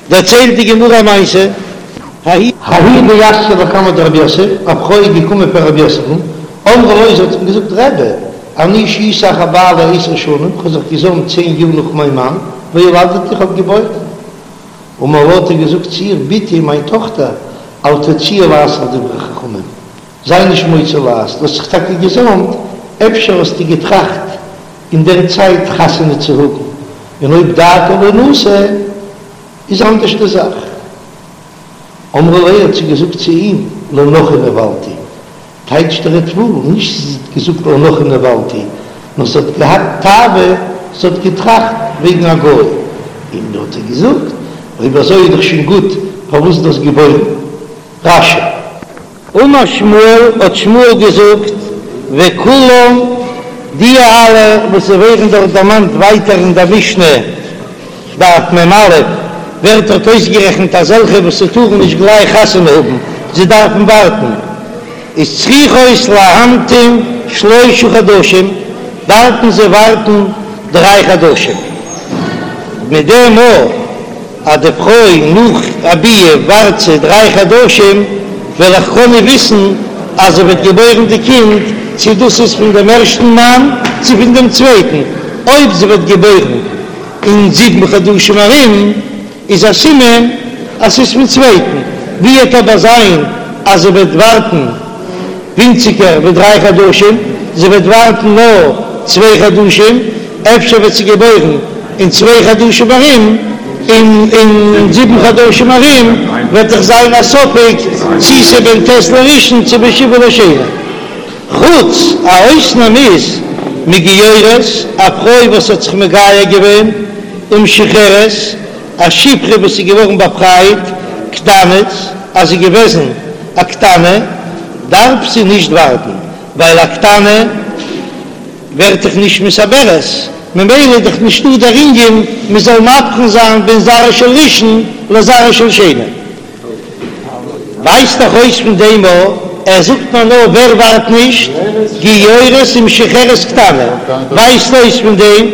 דערציילט די גמרא א מעשה, ההיא דאתיא לקמיה דרב יוסף, א פרוי איז געקומען פאר רב יוסף'ן, אמרה לו, זי האט אים געזאגט, רבי, אני שהיתי אחר בעלי עשר שנים, כ'האב זיך געזאמט צען יאר נאך מיין מאן, וילדתי, איך האב געבוירן. אמר לה, האט ער געזאגט צו איר, בתי, מיין טאכטער, אל תוציאי לעז על דברי חכמים, זיי נישט מוציא לעז, דו האסט זיך טאקע געזאמט, אפשר האסטו געטראכט אין דער צייט חתונה צו האבן, און אויב דעתה לינשא איז אנדערש די זאך. אמרה ליה האט זי געזאגט צו אים, לנכרי נבעלתי, טייטשט דער ריטב"א, נישט זי האט געזאגט לנכרי נבעלתי, נאר זי האט געהאט תאווה, זי האט געטראכט וועגן א גוי, און האט ער געזאגט, אויב אזוי איז דאך שוין גוט, פארוואס דו האסט געבוירן? רש"י. אמר שמואל, האט שמואל געזאגט, וכולם, די אלע וואס ווערן דארט דערמאנט ווייטער אין דער משנה, דף מ"א, ווערט דארט אויסגערעכנט אזעלכע וואס ס'טארן נישט גלייך חתונה האבן, זיי דארפן ווארטן, איז צריכות להמתין שלשה חדשים, דארפן זיי ווארטן דריי חדשים, מיט דעם מאל. אז די פרוי נאך א ביאה ווארט זי דריי חדשים, וועל איך קענען וויסן אז זי וועט געבוירן די קינד, צו דאס איז פון דעם ערשטן מאן צו פון דעם צווייטן. אויב זי וועט געבוירן אין זיבן חדשים ארום, איז א סימן אז ס'איז פון צווייטן. ווי וועט אבער זיין אז זי וועט ווארטן ווינציגער ווי דריי חדשים, זי וועט ווארטן נאר צוויי חדשים, אפשר וועט זי געבוירן אין צוויי חדשים ארום, און אין זיבן חדשים ארום וועט דאך זיין א ספק צי ס'איז בן ט' לראשון צו בן שבעה לשני. חוץ א אויסנאם איז מגיורת, א פרוי וואס האט זיך מגייר געווען, ומשוחררת, א שפחה וואס איז געווארן באפרייט, קטנות, אז זי איז געוועזן א קטנה דארף זי נישט ווארטן, ווייל א קטנה ווערט דאך נישט מתעברת, ממילא איז דאך נישטא דער ענין מען זאל מבחין זיין בין זרע של ראשון לזרע של שני. ווייזט דאך אויס פון דעם א, ער זאגט מיר נאר ווער ווארט נישט, גיורת ומשוחררת קטנה, ווייזט אויס פון דעם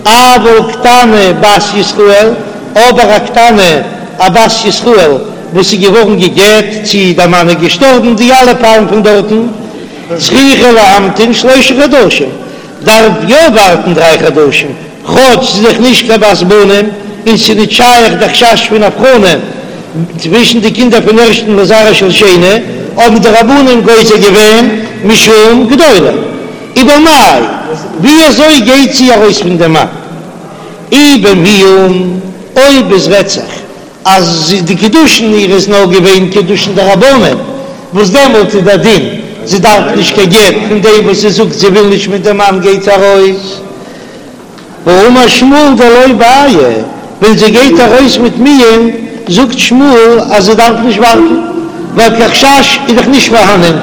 אבל קטנה בת ישראל, אבער א קטנה א בת ישראל וואס איז געווארן גע'גט צי דער מאן איז געשטארבן, די אלע פאלן פון דארטן, צריכה להמתין שלשה חדשים, דארף יא ווארטן דריי חדשים, כאטש ס'איז דאך נישט קיין בת בנים און ס'איז נישט שייך די חשש פון הבחנה צווישן די קינדער פון ערשטן לזרע של שני, האבן די רבנן גוזר געווען משום גדולה. ובמאי, ווי אזוי גייט זי ארויס פון דעם מאן? אי במיאון, אויב עס רעדט זיך אז די קידושין איר איז נאר געווען קידושין דרבנן, וואס דעמאלט איז דער דין זי דארף נישט קיין גט, פון דעם וואס זי זאגט זי וויל נישט מיט דעם מאן גייט זי ארויס. והאמר שמואל דלא בעיא, ווען זי גייט ארויס מיט מיאון זאגט שמואל אז זי דארף נישט ווארטן, ווייל קיין חשש איז דאך נישט פארהאנען,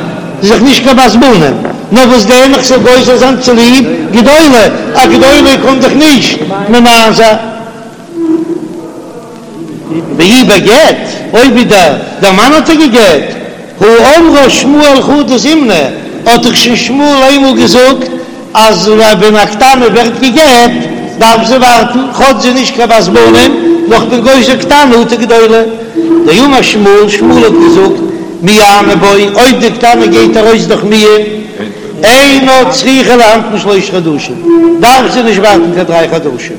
זי איז דאך נישט קיין בת בנים, נאר וואס דען איך זאל גוזר זיין צוליב גדולה, א גדולה קען דאך נישט ממאן זיין. ואי בגט, אויב ווידער דער מאן האט איר גע'גט, הא אמרה שמואל חדא זימנא, האט דאך שוין שמואל איינמאל געזאגט אז ווען א קטנה ווערט גע'גט דארף זי ווארטן, כאטש זי איז נישט קיין בת בנים, נאר כ'בין גוזר קטנה אטו גדולה. דאמר שמואל, שמואל האט געזאגט, מיאנה בו, אויב די קטנה גייט ארויס דורך מיאון, אינה צריכה להמתין שלושה חדשים, דארף זי נישט ווארטן קיין דריי חדשים.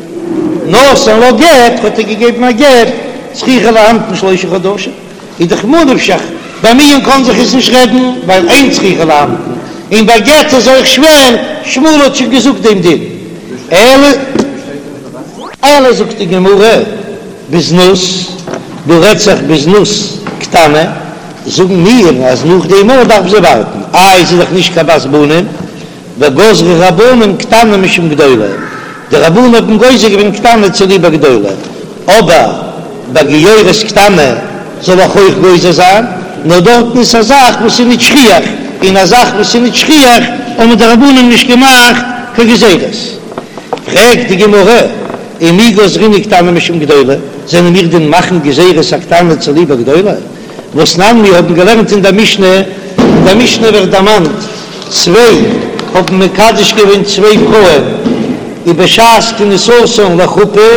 נתן לה גט, האט ער געגעבן א גט, צריכה להמתין שלושה חדשים, איז דאך ממה נפשך, ביי מיאון קאן זיך עס נישט רעדן, ווייל אין צריכה להמתין, און ביי גט איז אויך שווער, שמואל האט שוין געזאגט דעם דין. אלא אלא זאגט די גמרא, בזנות, דא רעדט זיך בזנות קטנה, זאגן מיר אז נאך דעם אויך דארף זי ווארטן, איי זי איז דאך נישט קיין בת בנים, וגזרו רבנן קטנה משום גדולה, די רבנן האבן גוזר געווען קטנה צוליב א גדולה, אבער ביי גיורת קטנה זאל איך אויך גוזר זיין, נאר דארטן איז א זאך וואס איז נישט שכיח, און א זאך וואס איז נישט שכיח האבן די רבנן נישט געמאכט קיין גזירות. פרעגט די גמרא, ומי גזרינן קטנה משום גדולה, זענען מיר דען מאכן גזירות א קטנה צוליב א גדולה? והתנן מיר האבן געלערנט אין דער משנה, אין דער משנה ווערט דערמאנט, צוויי האבן מקדש געווען צוויי פרויען, ובשעת כניסתן לחופה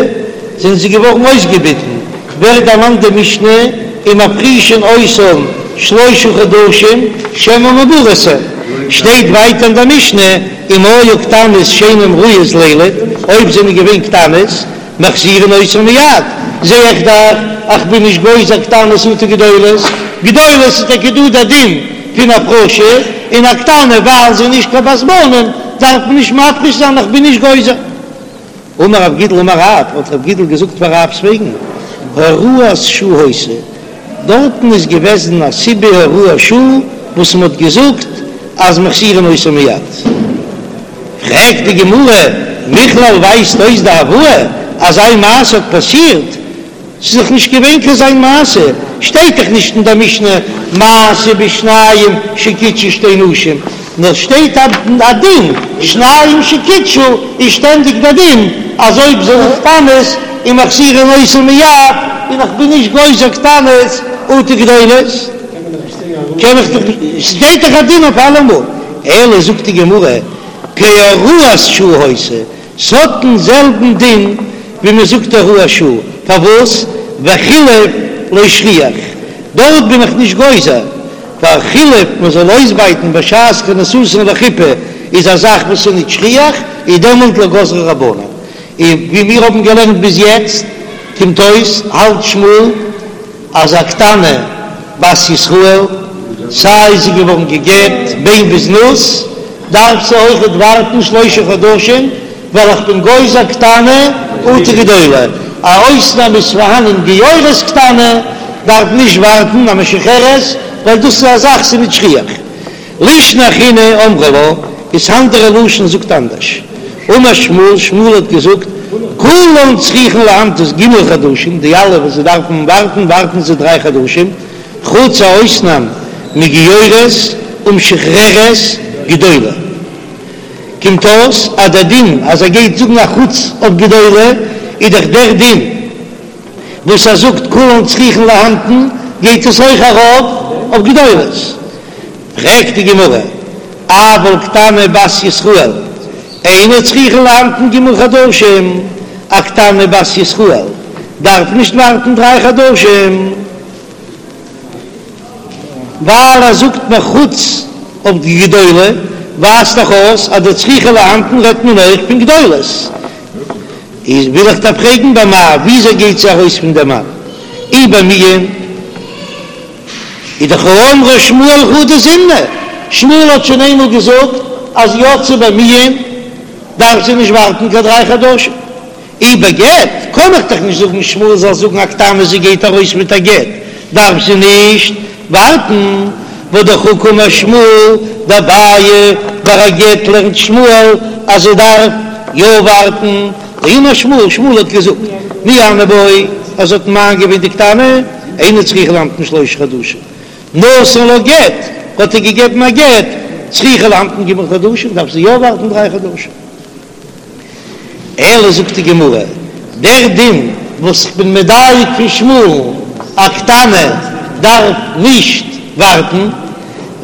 זענען זיי געווארן אויסגעביטן. ווערט דערמאנט די משנה ומפרישין אותן שלשה חדשים שמא מעוברות הן, שטייט ווייטער אין די משנה אם היו קטנות שאינן ראויות לילד, אויב זענען געווען קטנות מחזירין אותן מיד, זע איך דאך אז כ'בין נישט גוזר קטנות אטו גדולות, גדולות איז טאקע דא דער דין פון הפרשה, און א קטנה ווייל זי איז נישט קיין בת בנים דארף מען נישט מפריש זיין איך בין נישט גוזר. אמר רב גידל אמר רב, האט רב גידל געזאגט פאר רב'ס וועגן, הוראת שעה היתה, דארטן איז געוועזן א סיבה הוראת שעה וואס מען האט געזאגט אז מחזירין אותן מיד. פרעגט די גמרא, מכלל ווייזט אויס דהואי אז אזא מעשה האט פאסירט, ס'איז דאך נישט געווען קיין אזא מעשה, שטייט דאך נישט אין דער משנה מעשה בשניים שקידשו שתי נשים, נאר שטייט א דין שניים שקידשו איז שטענדיג דער דין אז אויב זענען קטנות איז מחזירין אותן מיד, און איך בין נישט גוזר קטנות אטו גדולות, קען איך דאך נישט, שטייט דאך א דין אויף אלעמאל, אלא זאגט די גמרא כהוראת שעה היתה, ס'האט דעם זעלבן דין ווי מען זאגט הוראת שעה, פארוואס וחילוף לא שכיח, דארט בין איך נישט גוזר, ווייל חילוף מען זאל אויסבייטן בשעת כניסתן לחופה איז א זאך וואס איז נישט שכיח, איז דעמאלט לא גזרו רבנן, און ווי מיר האבן געלערנט ביז יעצט קומט אויס האלט שמואל אז א קטנה בת ישראל, סיי זי איז געווארן גע'גט בין בזנות, דארף זי אויכעט ווארטן שלושה חדשים, ווייל איך בין גוזר קטנה אטו גדולה, א אויסנאם איז פארהאנען גיורת קטנה דארף נישט ווארטן א משוחררת, ווייל דאס איז א זאך ס'איז נישט שכיח. לישנא אחרינא אמרי לה, איז אנדערע לשון זאגט אנדערש. אמר שמואל, שמואל האט געזאגט, כולן צריכין להמתין ג' חדשים, די אלע וואס זיי דארפן ווארטן, ווארטן זיי דריי חדשים, חוץ א אויסנאם מגיורת ומשוחררת גדולה. קומט אויס אז דער דין אז ער גייט זאגן א חוץ אויף גדולה, איז דאך דער דין וואס ער זאגט כולן צריכין להמתין, גייט עס אויך ארויף אויף גדולות. פרעגט די גמרא, אבל קטנה בת ישראל אינה צריכה להמתין ג' חדשים, א קטנה בת ישראל דארף נישט ווארטן דריי חדשים, ווייל ער זאגט מיר חוץ אויף די גדולה, ווייזט דאך אויס אז די צריכה להמתין רעדט מען אויך פון גדולות. איז וויל איך דיר פרעגן במאי, וויאזוי גייט זי ארויס פון דעם מאן? אי במיאון איז דאך האמרה שמואל חדא זימנא, שמואל האט שוין איינמאל געזאגט אז יצאה במיאון דארף זי נישט ווארטן קיין דריי חדשים. אי בגט קען איך דאך נישט זאגן שמואל זאל זאגן א קטנה זי גייט ארויס מיט א גט דארף זי נישט ווארטן, והא דאך הא קאמר שמואל דבעיא ביי א גט לערנט שמואל אז זי דארף יא ווארטן, דאמר שמואל שמואל האט געזאגט מיאנה בו אז זי האט ממאן געווען די קטנה אינה צריכה להמתין שלושה חדשים נתן לה גט האט ער געגעבן א גט צריכה להמתין ג' חדשים דארף זי יא ווארטן דריי חדשים. אלא זאגט די גמרא, דער דין וואס איך בין מדייק פון שמואל'ן, א קטנה דארף נישט ווארטן,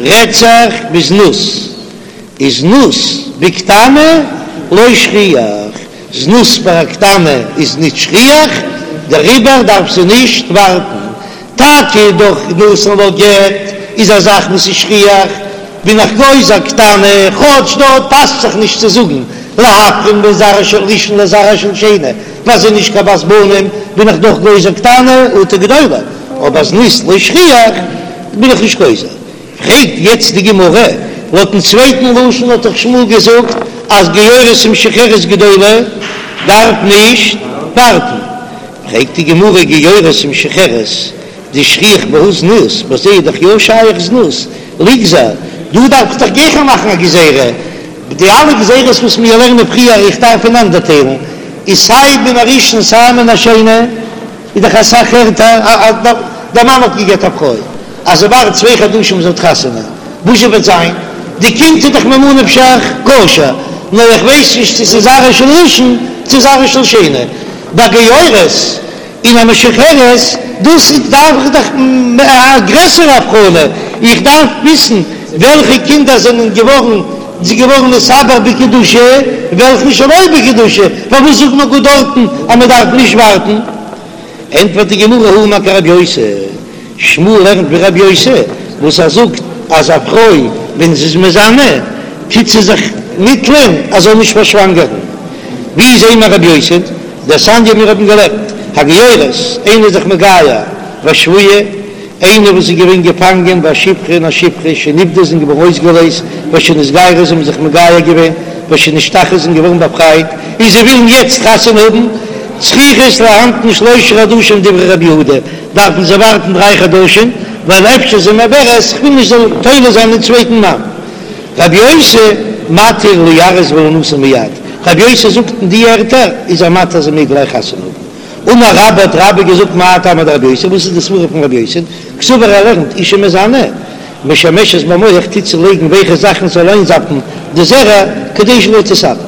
רעדט זיך בזנות, איז זנות בקטנה לא שכיח, זנות ביי א קטנה איז נישט שכיח, דעריבער דארף זי נישט ווארטן, טאקע דורך נתן לה גט איז א זאך וואס איז שכיח, בין איך גוזר קטנה, כאטש דארט פאסט זיך נישט צו זאגן להבחין בין זרע של ראשון לזרע של שני, ווייל זי איז נישט קיין בת בנים, בין איך דאך גוזר קטנה אטו גדולה, אבער זנות לא שכיח בין איך נישט גוזר. פרעגט יעצט די גמרא, לויטן צווייטן לשון האט דאך שמואל געזאגט אז גיורת ומשוחררת גדולה דארף נישט ווארטן, פרעגט די גמרא גיורת ומשוחררת דשכיח בהו זנות, ביי זיי איז דאך יא שייך זנות, ליגזור, דא דארף איך דאך גיכער מאכן א גזירה, די אלע גזירות וואס מיר לערנען פריער איך דארף פונאנדערטיילן, איז סיי מן הראשון סיי מן השני, איז דאך אסאך ערטער אז דער מאן האט געגעט א פרוי אז זי ווארט צוויי חדשים זי האט חתונה, וואס זשע וועט זיין? די קינד איז דאך ממה נפשך כשר, נאר איך ווייס נישט צו ס'איז זרעו של ראשון צו זרעו של שני, ביי גיורת און א משוחררת, דאס דארף איך דאך א גרעסערע הבחנה, איך דארף וויסן וועלכע קינדער זענען געווארן געווארן נתעבר בקדושה און וועלכע שלא בקדושה, פארוואס זאגט מען גאר דארטן אז מען דארף נישט ווארטן? ענטפערט די גמרא הוא אמר כרבי יוסי, שמואל לערנט ווי רבי יוסי וואס ער זאגט אז א פרוי ווען זי איז מזנה טוט זי זיך מיטלען אז זאל נישט פארשוואנגערן. ווי זעהן מיר רבי יוסי? דתניא מיר האבן געלערנט הגיורת, איינער איז זיך מגייר והשבויה, איינער וואס איז געווען געפאנגען והשפחה און א שפחה שנפדו זענען געווארן אויסגעלייזט ושנתגיירו זיי האבן זיך מגייר געווען ושנשתחררו זענען געווארן באפרייט און זיי ווילן יעצט חתונה האבן, צריכות להמתין שלושה חדשים דברי רבי יהודה, דארפן זיי ווארטן דריי חדשים, ווייל אפשר זי מעוברת, כ'וויל נישט זאל תולה זיין אין צווייטן מאן. רבי יוסי מתיר ליארס ולינשא מיד, רבי יוסי זאגט אין די ערטער איז ער מתיר זי מעג גלייך חתונה האבן. אמר רבה האט רבה געזאגט מאי טעמא דרבי יוסי, וואס איז די סברא פון רבי יוסי, קסבר ער לערנט אשה מזנה משמשת במוך טוט זי לייגן ווייכע זאכן זאל איינזאפן די זרע כדי שלא תתעבר.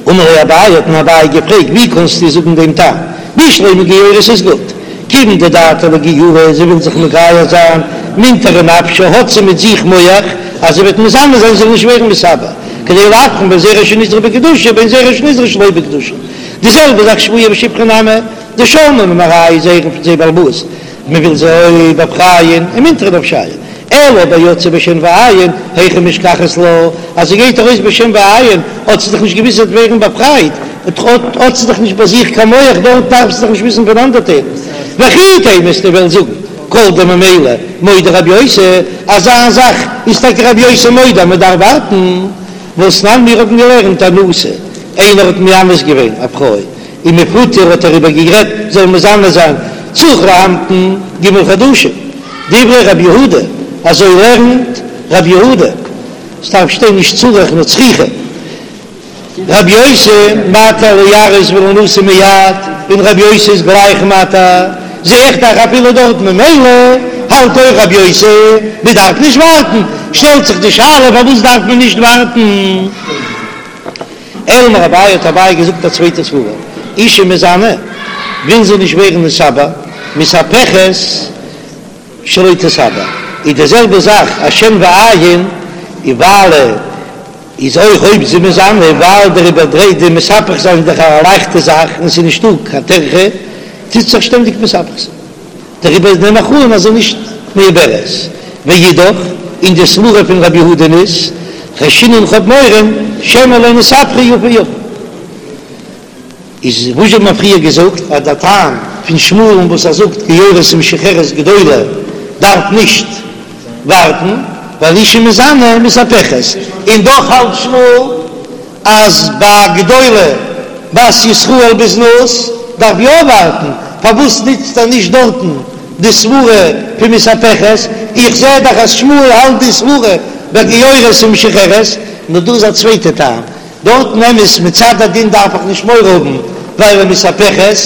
אמר ליה אביי, האט אים אביי געפרעגט, ווי קאנסטו זאגן דעם טעם? בשלמא גיורת איז גוט, כיוון דדעתה לאיגיורי, זי וויל זיך מגייר זיין, מינטרא נפשה, האט זי מיט זיך מח אז זי וועט מזנה זיין זי זאל נישט ווערן מתעבר, כדי להבחין בין זרע שנזרע בקדושה ובין זרע שנזרע שלא בקדושה. די זעלבע זאך שבויה ושפחה נמי, דשלמו ממרייהו זיי הערן פון זייער בעל הבית, מען וויל זיי באפרייען, ומינטרא נפשייהו. אלא אבער יצאה בשן ועין, היכי משכחת לה, אז זי גייט ארויס בשן ועין, האט זי דאך נישט געוואוסט זי וועט ווערן באפרייט, האט זי דאך נישט ביי זיך קיין מח, דארט דארף זי דאך נישט וויסן פונאנדערטיילן. וכי תימא וועסטו וועלן זאגן, כל דממילא מודה רבי יוסי, אזא זאך איז טאקע רבי יוסי מודה אז מען דארף ווארטן, והתנן מיר האבן געלערנט אנוסה, איינער האט מאנס געווען א פרוי, ומפותה האט ער איר איבערגערעדט זאל מזנה זיין צריך להמתין ג' חדשים, דברי רבי יהודה, אזוי לערנט רבי יהודה, ס'דארף שטיין נישט צריך נאר צריכה, רבי יוסי מתיר ליארס ולינשא מיד, און רבי יוסי איז גלייך מתיר, זע איך דאך אפילו דארט ממילא האלט אויך רבי יוסי מ'דארף נישט ווארטן, שטעלט זיך די שאלה פארוואס דארף מען נישט ווארטן? אלא אמר אביי האט אביי געזאגט א צווייטע סברא, אשה מזנה וויל זי נישט ווערן נתעבר, מתהפכת שלא תתעבר, איז די זעלבע זאך א שן ועין, און ווייל איז אויך אויב זי מזנה ווייל דער איבערדרייט די מתהפך זיין איז דאך א לייכטע זאך און ס'איז נישטא קיין טרחה טוט זיך שטענדיג מתהפך זיין. דעריבער נעם איך אן אז זי איז נישט מעוברת. ואידך, און די סברא פון רבי יהודה'ן איז, חיישינן כ'האב מורא, שמא לא נתהפכה יפה יפה. איז וואס האט מען פריער געזאגט אז דער טעם פון שמואל'ן וואס ער זאגט גיורת ומשוחררת גדולה דארף נישט ווארטן ווייל אשה מזנה מתהפכת, און דאך האלט שמואל אז ביי א גדולה בת ישראל בזנות דארף יא ווארטן, פארוואס נוצט ער נישט דארטן די סברה פון מתהפכת? איך זע דאך אז שמואל האלט די סברה ביי גיורת ומשוחררת, נאר דא איז א צווייטע טעם, דארטן אמת מצד הדין דארף איך נישט מורא האבן ווייל מתהפכת,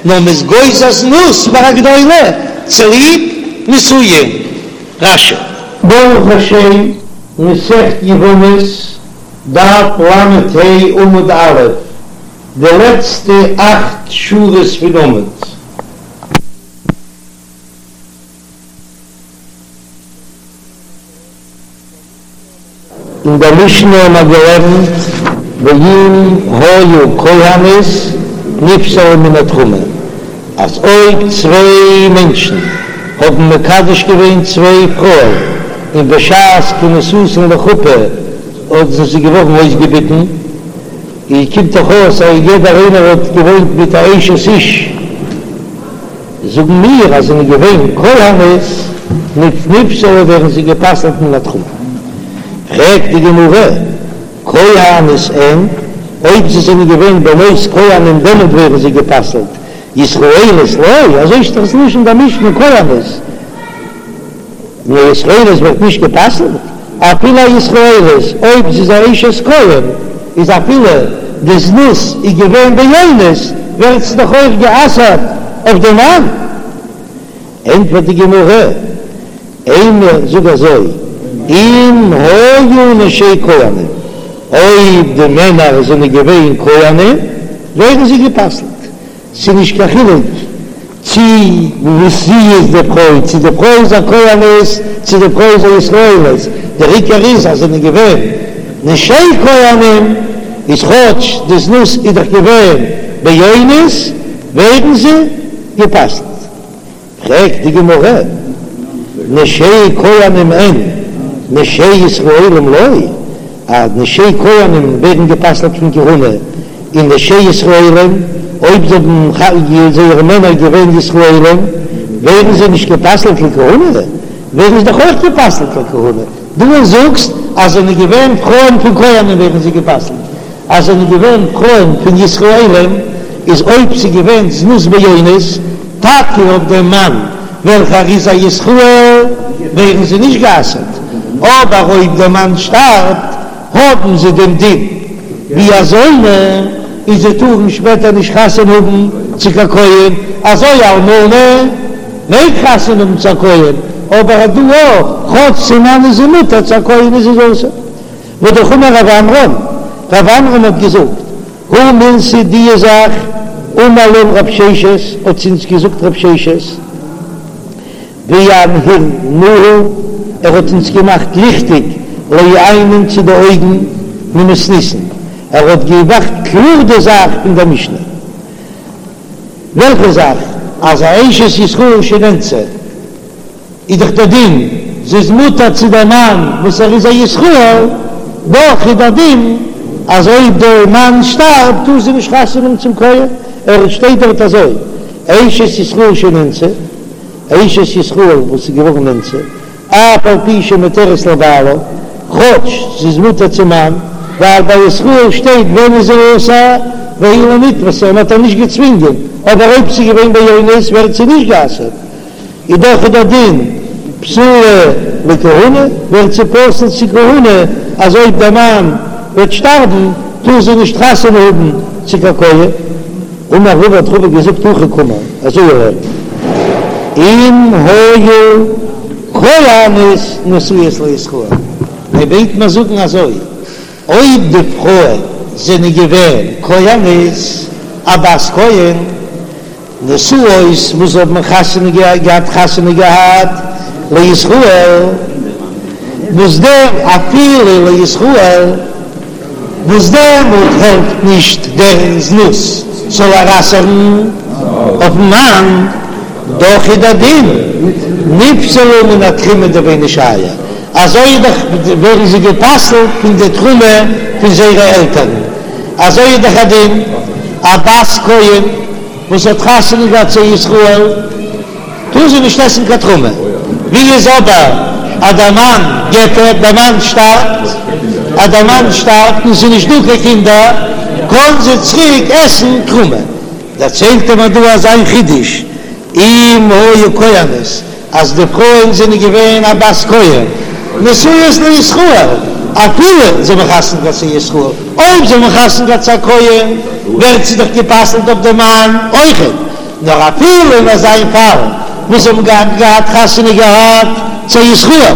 נאר מ'איז גוזר זנות ביי א גדולה צוליב נישואין. רש"י. ברוך השם, מסכת יבמות, דף ל"ה עמוד א', די לעצטע אכט שורות פון עמוד. אין דער משנה האבן מיר געלערנט ואם היו כהנות נפסלו מן התרומה, אז אויב צוויי מענטשן האבן מקדש געווען צוויי פרויען און בשעת כניסתן לחופה אויב זענען זיי געווארן אויסגעביטן, איז קומט דאך אויס אז יעדער איינער האט געוואוינט מיט א אשת איש, זאגן מיר אז זענען געווען כהנות, נפסלו ווערן זיי גע'פסל'ט מן התרומה. פרעגט די גמרא, כהנות אין, אויב זיי זענען געווען בנות כהנים דעמאלט ווערן זיי גע'פסל'ט, ישראליות לא, אזוי שטייט דאך ס'לשון די משנה כהנות. נאר ישראלית ווערט נישט גע'פסל'ט, אפילו א ישראלית אויב זי איז א אשת כהן, איז אפילו די זנות איז געווען באונס, ווערט זי דאך אויך גע'אסר'ט אויף דעם מאן. ענטפערט די גמרא, אימא זאג אזוי, אם היו נשי כהנים, אויב די מענער זענען געווען כהנים, ווערן זיי גע'פסל'ט, ס'איז נישט קיין חילוק צי וואס זי איז די פרוי, צי די פרוי איז א כהנת, צי די פרוי איז א ישראלית, דער עיקר איז אז זענען געווען נשי כהנים, איז כאטש די זנות איז דאך געווען באונס, ווערן זיי. גע'פסל'ט. פרעגט די גמרא, נשי כהנים אין, נשי ישראלים לא, אז נשי כהנים ווערן גע'פסל'ט פון כהונה, און נשי ישראלים, אויב זיי האבן זייערע מענער געווען ישראלים, ווערן זיי נישט גע'פסל'ט לכהונה? ווערן זיי דאך אויך גע'פסל'ט לכהונה. דו זאגסט אז זענען געווען פרויען פון כהנים ווערן זיי גע'פסל'ט, אז זענען געווען פרויען פון ישראלים איז אויב ס'איז געווען זנות באונס טאקע אויף דעם מאן וועלכער איז א ישראל ווערן זיי נישט גע'אסר'ט, אבער אויב דער מאן שטארבט האבן זיי דעם דין ווי א זונה און זיי טארן שפעטער נישט חתונה האבן צו קיין כהן, אזוי אלמנה מעג חתונה האבן צו א כהן, אבער דא אויך, כאטש צום מאן איז זי מותר צו א כהן איז זי אסור. והאמר רב עמרם, רב עמרם האט געזאגט, הא מילתא די זאך, אמר לן רב ששת, האט צו אונז געזאגט רב ששת, ואנהרינהו, ער האט אונז געמאכט ליכטיג לעיינין צו די אויגן ממתניתין, ער האט געמאכט קלאר די זאך פון דער משנה. וועלכע זאך? אז א אשת ישראל שנאנסה איז דאך דער דין, זי איז מותר צו דער מאן וואס ער איז א ישראל, דאך איז דער דין אז אויב דער מאן שטארבט טאר זי נישט חתונה האבן צום כהן, ער שטייט דארט אזוי, אשת ישראל שנאנסה, אשת ישראל וואס איז געווארן נאנסה, אף על פי שמותרת לבעלה, כאטש זי איז מותר צום מאן, ווייל ביי ישראל שטייט ווען איז זי אסור, והיא לא נתפשה, מען האט איר נישט געצווינגען, אבער אויב ס'איז געווען באונס ווערט זי נישט גע'אסר'ט, איז דאך איז דער דין פסולה לכהונה, ווערט זי פסול צו כהונה, אז אויב דער מאן וועט שטארבן טאר זי נישט חתונה האבן צו קיין כהן. אמר רבא האט רבא געזאגט הכי קאמר, אזוי לערנט אם היו כהנות נשואות לישראל, ער מיינט מיר זאגן אזוי, אויב די פרויען זענען געווען כהנות, א בת כהן, נשואות וואס האבן חתונה געהאט חתונה געהאט לישראל, וואס דער אפילו לישראל, וואס דעמאלט העלפט נישט דער זנות זאל איר אסר'ן אויפן מאן, דאך איז דער דין נפסלו מן התרומה דבי נשייא, אזוי איז דאך ווערן זיי גע'פסל'ט פון די תרומה פון זייערע עלטערן, אזוי איז דאך א דין א בת כהן וואס האט חתונה געהאט צו ישראל. טאר זי נישט עסן קיין תרומה. ווי איז אבער אז דער מאן גט איר, דער מאן שטארבט, אז דער מאן שטארבט און ס'איז נישט דא קיין קינדער, קען זי צוריק עסן תרומה. דערציילט ער מיר דא אזא חידוש, אם היו כהנות, אז די פרויען זענען געווען א בת כהן, נשואות לישראל, אפילו זיי האבן חתונה געהאט צו ישראל, אויב זיי האבן חתונה געהאט צו א כהן, ווערט זי דאך גע'פסל'ט אויף דעם מאן אויכעט. נאר אפילו אין אזא פאל וואס זיי האבן געהאט געהאט חתונה געהאט צו ישראל,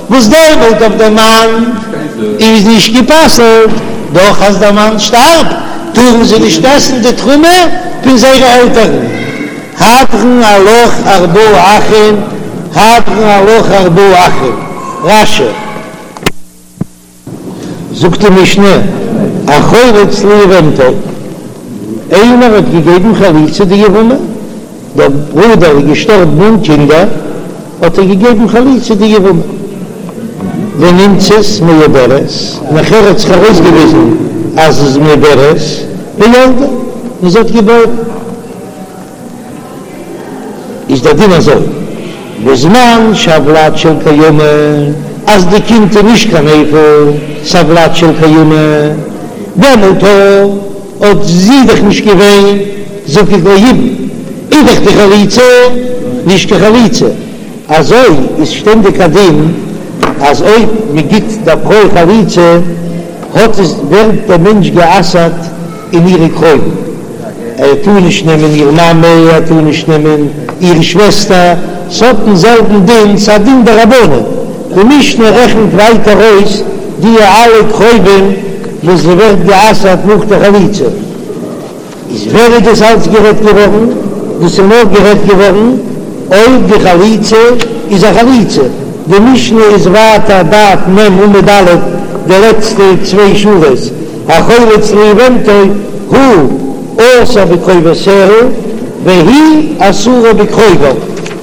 וואס דעמאלט אויף דעם מאן איז נישט גע'פסל'ט, דאך אז דער מאן שטארבט טארן זיי נישט עסן די תרומה פון זייערע עלטערן. הדרן עלך ארבעה אחין, הדרן עלך ארבעה אחין, רש"י. זאגט די משנה, החולץ ליבמתו, איינער האט געגעבן חליצה די יבמה, דער ברודער איז געשטארבן אן קינדער, האט ער געגעבן חליצה די יבמה, ונמצאת מעוברת, נאכער האט זיך ארויסגעוויזן אז זי איז מעוברת, וילדה, און זי האט געבוירן. איז דער דין אזוי, בזמן שהולד של קיימא, אז די קינד איז נישט קיין נפל, ס'א ולד של קיימא, דעמאלט האט זי דאך נישט געווען זקוק ליבום, איז דאך די חליצה נישט קיין חליצה, אזוי איז שטענדיג א דין אז אויב מען גיט דער פרוי חליצה האט עס ווערט דער מענטש גע'אסר'ט אין אירע קרובים, ער טאר נישט נעמען איר מאמע, ער טאר נישט נעמען איר שוועסטער, ס'האט דעם זעלבן דין, ס'א דין דרבנן, די משנה רעכנט ווייטער אויס די אלע קרובים וואס זי ווערט גע'אסר'ט נאך די חליצה, איז ווען איז דאס אלץ גערעדט געווארן? דאס איז נאר גערעדט געווארן אויב די חליצה איז א חליצה, די משנה איז ווייטער דף מ עמוד א' די לעצטע צוויי שורות, החולץ ליבמתו הוא אסור בקרובותיה. והיא אסורה בקרוביו,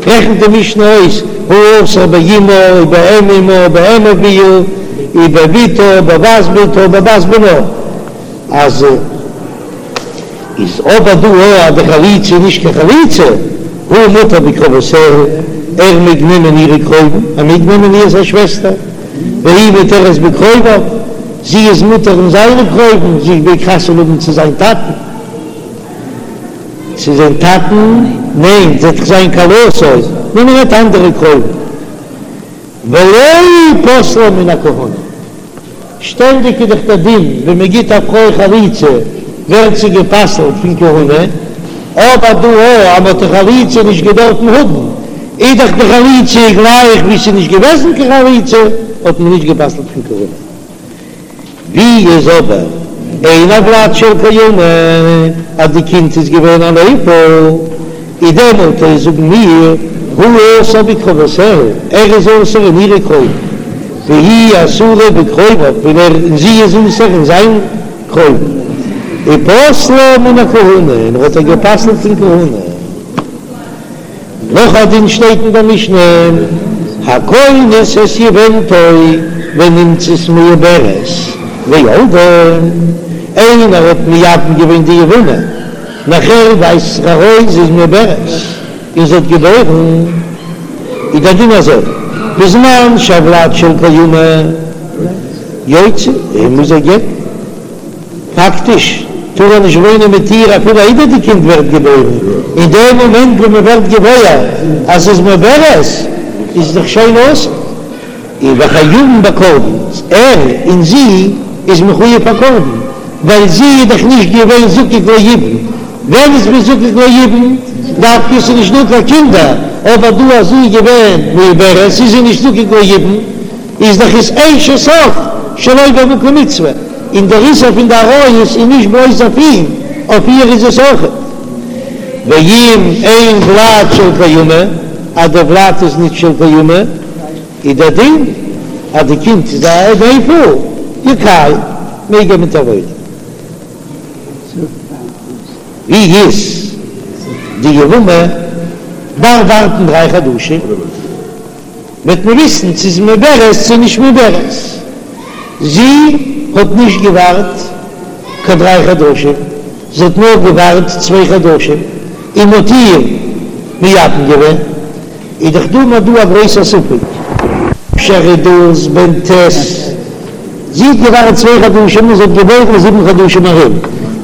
רעכנט די משנה אויס, הוא אסור באמה ובאם אמה ובאם אביה ובבתה ובבת בתה ובבת בנה, אז איז אבער דא אז די חליצה איז נישט קיין חליצה, הוא מותר בקרובותיה, ער מעג נעמען אירע קרובים, ער מעג נעמען אירס א שוועסטער, והיא מותרת בקרוביו, זי איז מותר אין זיינע קרובים, זי מעג חתונה האבן צו זיין טאטן. צו זיין טאטן? ניין, זי וועט דאך זיין כלתו, נאר מען רעדט אנדערע קרובים. ולא פסלה מן הכהונה. שטענדיג איז דאך דער דין ווען מען גיט א פרוי חליצה ווערט זי גע'פסל'ט פון כהונה, אבער דא אז מען האט די חליצה נישט געדארפן האבן, איז דאך די חליצה גלייך ווי ס'איז נישט געוועזן קיין חליצה, האט מען נישט גע'פסל'ט פון כהונה. ווי איז אבער אין הולד של קיימא אז די קינד איז געווען א נפל, איז דעמאלט אויך זאגן מיר הוא אסור בקרובותיה, ער איז אסור אין אירע קרובים, והיא אסורה בקרוביו, און ער און זי איז אסור אין זיין קרובים, ופסלה מן הכהונה, און ער האט איר גע'פסל'ט פון כהונה. נאך א דין שטייט אין דער משנה, הכונס את יבמתו ונמצאת מעוברת וילדה, איינער האט מייבם געווען די יבמה, נאכער ווייזט זיך ארויס זי איז מעוברת און זי האט געבוירן, איז דער דין אזוי, בזמן שהולד של קיימא יוציא, ער מוז איר גט'ן. פאקטיש טאר ער נישט וואוינען מיט איר אפילו איידער די קינד ווערט געבוירן, אין דעם מאמענט ווען מען ווערט געוואויר אז ס'איז מעוברת איז דאך שוין אסור, און וחייבין בקרבן, ער און זי איז מחויב א קרבן, ווייל זי איז דאך נישט געווען זקוק ליבום, ווען איז מען זקוק ליבום? דווקא ס'איז נישט דא קיין קינדער, אבער דא אז זי איז געווען מעוברת איז זי נישט זקוק ליבום. איז דאך איז אשת אח שלא במקום מצוה, און דער איסור פון די עריות איז נישט בלויז אויף אים, אויף איר איז עס אויכעט. ואם אין ולד של קיימא, אז דער ולד איז נישט של קיימא, איז דער דין אז די קינד איז א נפל, יקיים, מעג ער מיט איר וואוינען. ווי איז די יבמה דארף ווארטן דריי חדשים. וועט מען וויסן צו איז מעוברת צו נישט מעוברת. זי האט נישט געווארט קיין דריי חדשים, זי האט נאר געווארט צוויי חדשים און מ'האט איר מייבם געווען, איז דאך דא נאר דא א גרויסע ספק. אפשר איז דאס בן ט', זי האט געווארט צוויי חדשים און זי האט געבוירן זיבן חדשים ארום,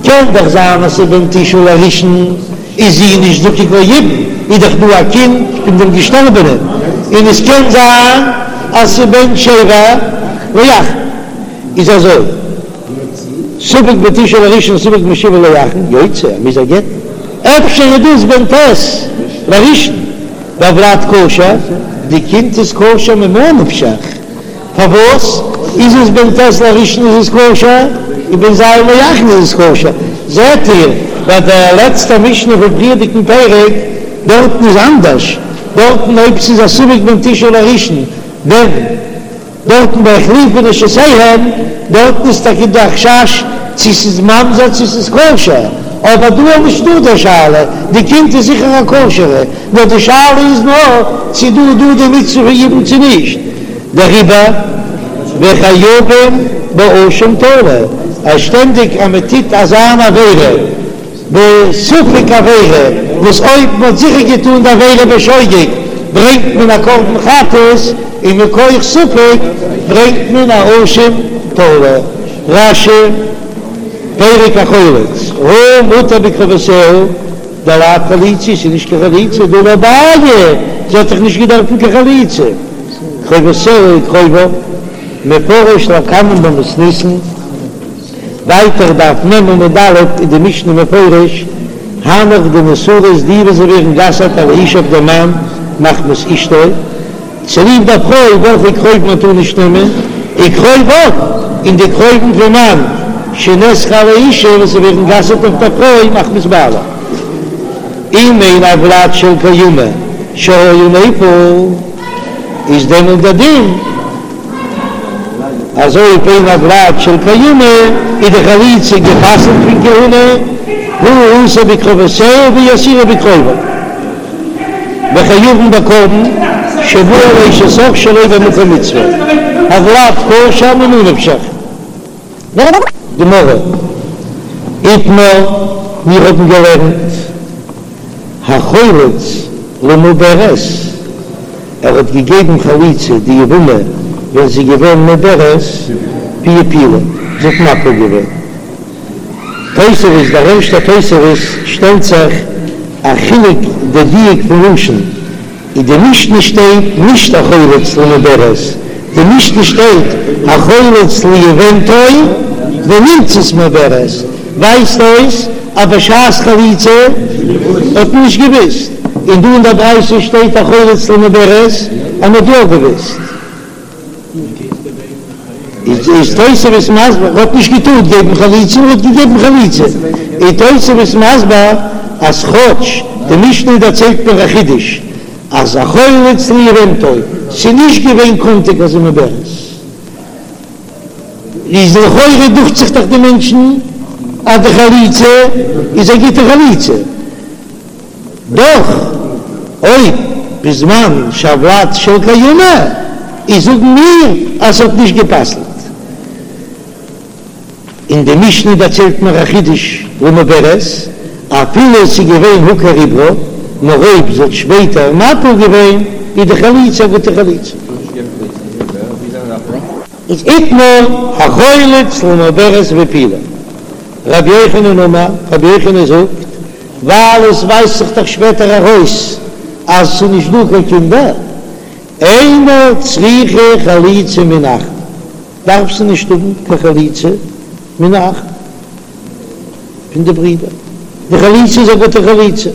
קען דאך זיין אז ס'איז בן תשעה לראשון. איז זי נישט זקוק ליבום, איז דאך דא א קינד פון דעם געשטארבענעם, און עס קען זיין אז ס'איז בן שבע לאחרון, איז אזוי, ספק בן תשעה לראשון ספק בן שבע לאחרון, יוציא, ער מוז איר גט'ן, אפשר איז דאס בן ט' לראשון, והולד כשר, די קינד איז כשר ממה נפשך. פארוואס איז עס בן ט' לראשון איז עס כשר און בן ז' לאחרון איז עס כשר? זעט איר ביי די לעצטע משנה פון פריערדיגן פרק דארטן איז אנדערש, דארטן אויב ס'איז א ספק בן תשעה לראשון ווען דארטן ביי החליפו נשותיהם דארטן איז טאקע דא א חשש צו ס'איז ממזר צו ס'איז כשר, אבער דא איז נישטא די שאלה, די קינד איז זיכער א כשר'ע, נאר די שאלה איז נאר צו דא איז דא די מצוה פון יבום צו נישט. דעריבער וחייבים באשם תלוי, אז שטענדיג אז מען טוט אזא אן עבירה בספק עבירה, וואס אויב מען האט זיכער געטאן די עבירה בשוגג ברענגט מען א קרבן חטאת, און מכח ספק ברענגט מען א אשם תלוי. רש"י, פרק החולץ, הוא מותר בקרובותיה. דלאו חליצה ס'איז נישט קיין חליצה, דהא לא בעיא, זי האט דאך נישט געדארפן קיין חליצה. קרובותיה וקרוביו, מפרש לקמן במתניתין, ווייטער דף מ עמוד א' איז די משנה מפרש, הנך דנאסרות די וואס זיי ווערן גע'אסר'ט על האיש אויף דעם מאן מחמת אשתו, צוליב דער פרוי וועלכע קרובים מען טאר נישט נעמען, וקרוביו, און די קרובים פון מאן, שנאסרו על האשה, וואס זיי ווערן גע'אסר'ט אויף דער פרוי מחמת בעלה. אם אין הולד של קיימא שהיה נפל, איז דעמאלט דער דין אז אויב אין הולד של קיימא איז די חליצה גע'פסל'ט פון כהונה. הוא אסור בקרובותיה והיא אסורה בקרוביו, וחייבין בקרבן שבא על אשת אח שלא במקום מצוה, הולד כשר ממה נפשך. גמרא, איתמר, מיר האבן געלערנט החולץ למעוברת, ער האט געגעבן חליצה די יבמה ווען זי איז געווען מעוברת, והפילה, זי האט מפיל געווען. תוספות, דער ערשטער תוספות שטעלט זיך א חילוק די דיוק פון לשון, אין די משנה שטייט נישט החולץ למעוברת, די משנה שטייט החולץ ליבמתו ונמצאת מעוברת, ווייזט אויס אז בשעת חליצה האט מען נישט געוויסט, און דא אין דער ברייתא שטייט החולץ למעוברת אז מען האט יא געוויסט. איז תוספות מסביר, ער האט נישט געטארט געבן חליצה און ער האט געגעבן חליצה, איז תוספות מסביר אז כאטש די משנה דערציילט מיר א חידוש אז החולץ ליבמתו, ס'איז נישט געווען קאנטיג אז זי איז מעוברת, איז לכאורה דוכט זיך דאך די מענטשן אז די חליצה איז א גוטע חליצה. דאך אויב בזמן שהולד של קיימא איז זאגן מיר אז ס'האט נישט גע'פסל'ט. און די משנה דערציילט מיר א חידוש למעוברת, אפילו ס'איז געווען הוכר עוברה, נאר אויב זי האט שפעטער מפיל געווען איז די חליצה א גוטע חליצה. איז איתמר החולץ למעוברת והפילה. רבי יוחנן אמר, רבי יוחנן זאגט, ווייל עס ווייזט זיך דאך שפעטער ארויס אז ס'איז נישט דא קיין קינדער, אינה צריכה חליצה מן האחין, דארף זי נישט האבן קיין חליצה מן האחין פון די ברידער, די חליצה איז א גוטע חליצה.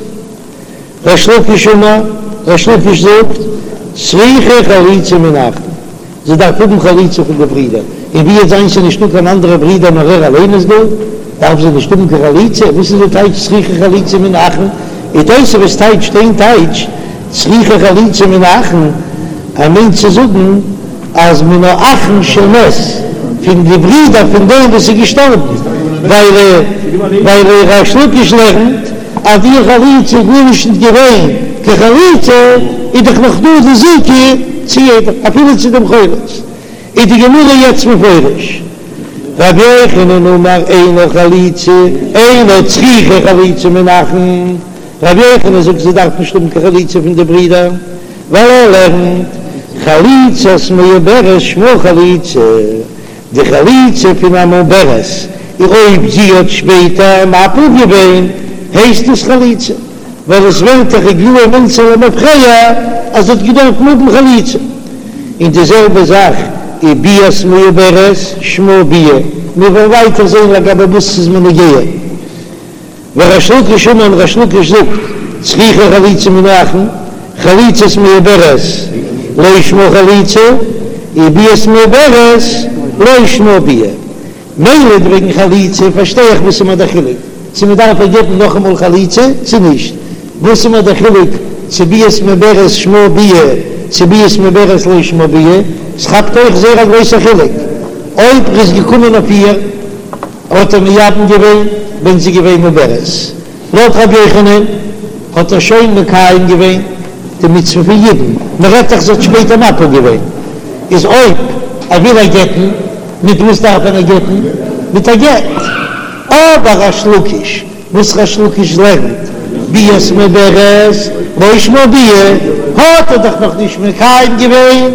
ריש לקיש אמר, ריש לקיש זאגט, צריכה חליצה מן האחין, זי דארף האבן חליצה פון די ברידער, און ווי וועט זיין ס'איז נישטא קיין אנדערע ברידער נאר ער אליין איז דא, דארף זי נישט האבן קיין חליצה, וואס איז די טייטש צריכה חליצה מן האחין? און תוספות טייטשט איין טייטש צריכה חליצה מן האחין, ער מיינט צו זאגן אז מן האחין של מת, פון די ברידער פון דעם וואס איז געשטארבן, ווייל ווייל ריש לקיש לערנט אז די חליצה איז גארנישט נישט געווען קיין חליצה, איז דאך נאך דא די זיקה צו יעדעם אפילו צו דעם חולץ, איז די גמרא יעצט מפרש, רבי יוחנן אמר אינה חליצה, אינה צריכה חליצה מן האחין, רבי יוחנן זאגט זי דארף נישט האבן קיין חליצה פון די ברידער, ווייל ער לערנט חליצת מעוברת שמה חליצה, די חליצה פון א מעוברת, און אויב זי האט שפעטער מפיל געווען הייסט עס חליצה, ווייל עס ווערט דאך איגלאי מילתא למפרע אז זי האט געדארפט האבן חליצה. און די זעלבע זאך איז ביאת מעוברת שמה ביאה, מיר וועלן ווייטער זען לגבי וואס ס'איז מיר נוגע. וריש לקיש אמר און ריש לקיש זאגט, צריכה חליצה מן האחין, חליצת מעוברת לא שמה חליצה, וביאת מעוברת לא שמה ביאה. מילא וועגן חליצה פארשטיי איך וואס איז מיר דער חילוק צו מען דארף איר געבן נאכאמאל חליצה צו נישט, וואס איז מיר דער חילוק צו ביאת מעוברת שמה ביאה צו ביאת מעוברת לא שמה ביאה, ס'כאפט אויך זייער א גרויסער חילוק אויב ר'איז געקומען אויף איר. האט ער מייבם געווען ווען זי געווען מעוברת. לויט רבי יוחנן האט ער שוין מקיים געווען די מצוה פון יבום, מען רעדט דאך זי האט שפעטער מפיל געווען, איז אויב ער וויל איר גט'ן, מיט וואס דארף ער איר גט'ן? מיט א גט. אבער ריש לקיש, וואס ריש לקיש לערנט ביאת מעוברת לא שמה ביאה, האט ער דאך נאכנישט מקיים געווען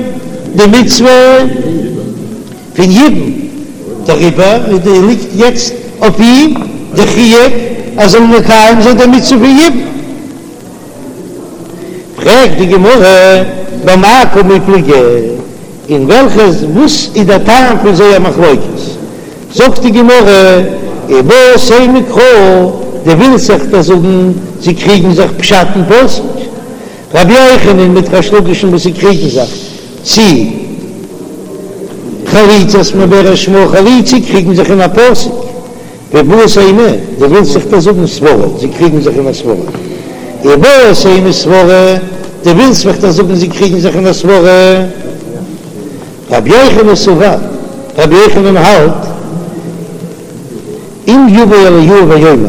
די מצוה. פון יבום, דעריבער ליגט יעצט אויף אים די חיוב ער זאל מקיים זיין די מצוה פון יבום. פרעגט די גמרא, במאי קמיפלגי, אין וועלכע וואס איז דער טעם פון זייער מחלוקת? זאגט די גמרא, איבעית אימא קרא, דו ווילסט זיך דאך זאגן זיי קריגן זיך פשט אין פסוק, רבי יוחנן מיט ריש לקיש'ן וואס זיי קריגן זיך צי חליצת מעוברת שמה חליצה קריגן זיך אין א פסוק ואיבעית אימא דו ווילסט זיך דאך זאגן סברא זיי קריגן זיך אין א סברא איבעית אימא סברא דו ווילסט מיך דאך זאגן זיי קריגן זיך אין א סברא רבי יוחנן סבר רבי יוחנן האלט אם יבא אליהו ויאמר.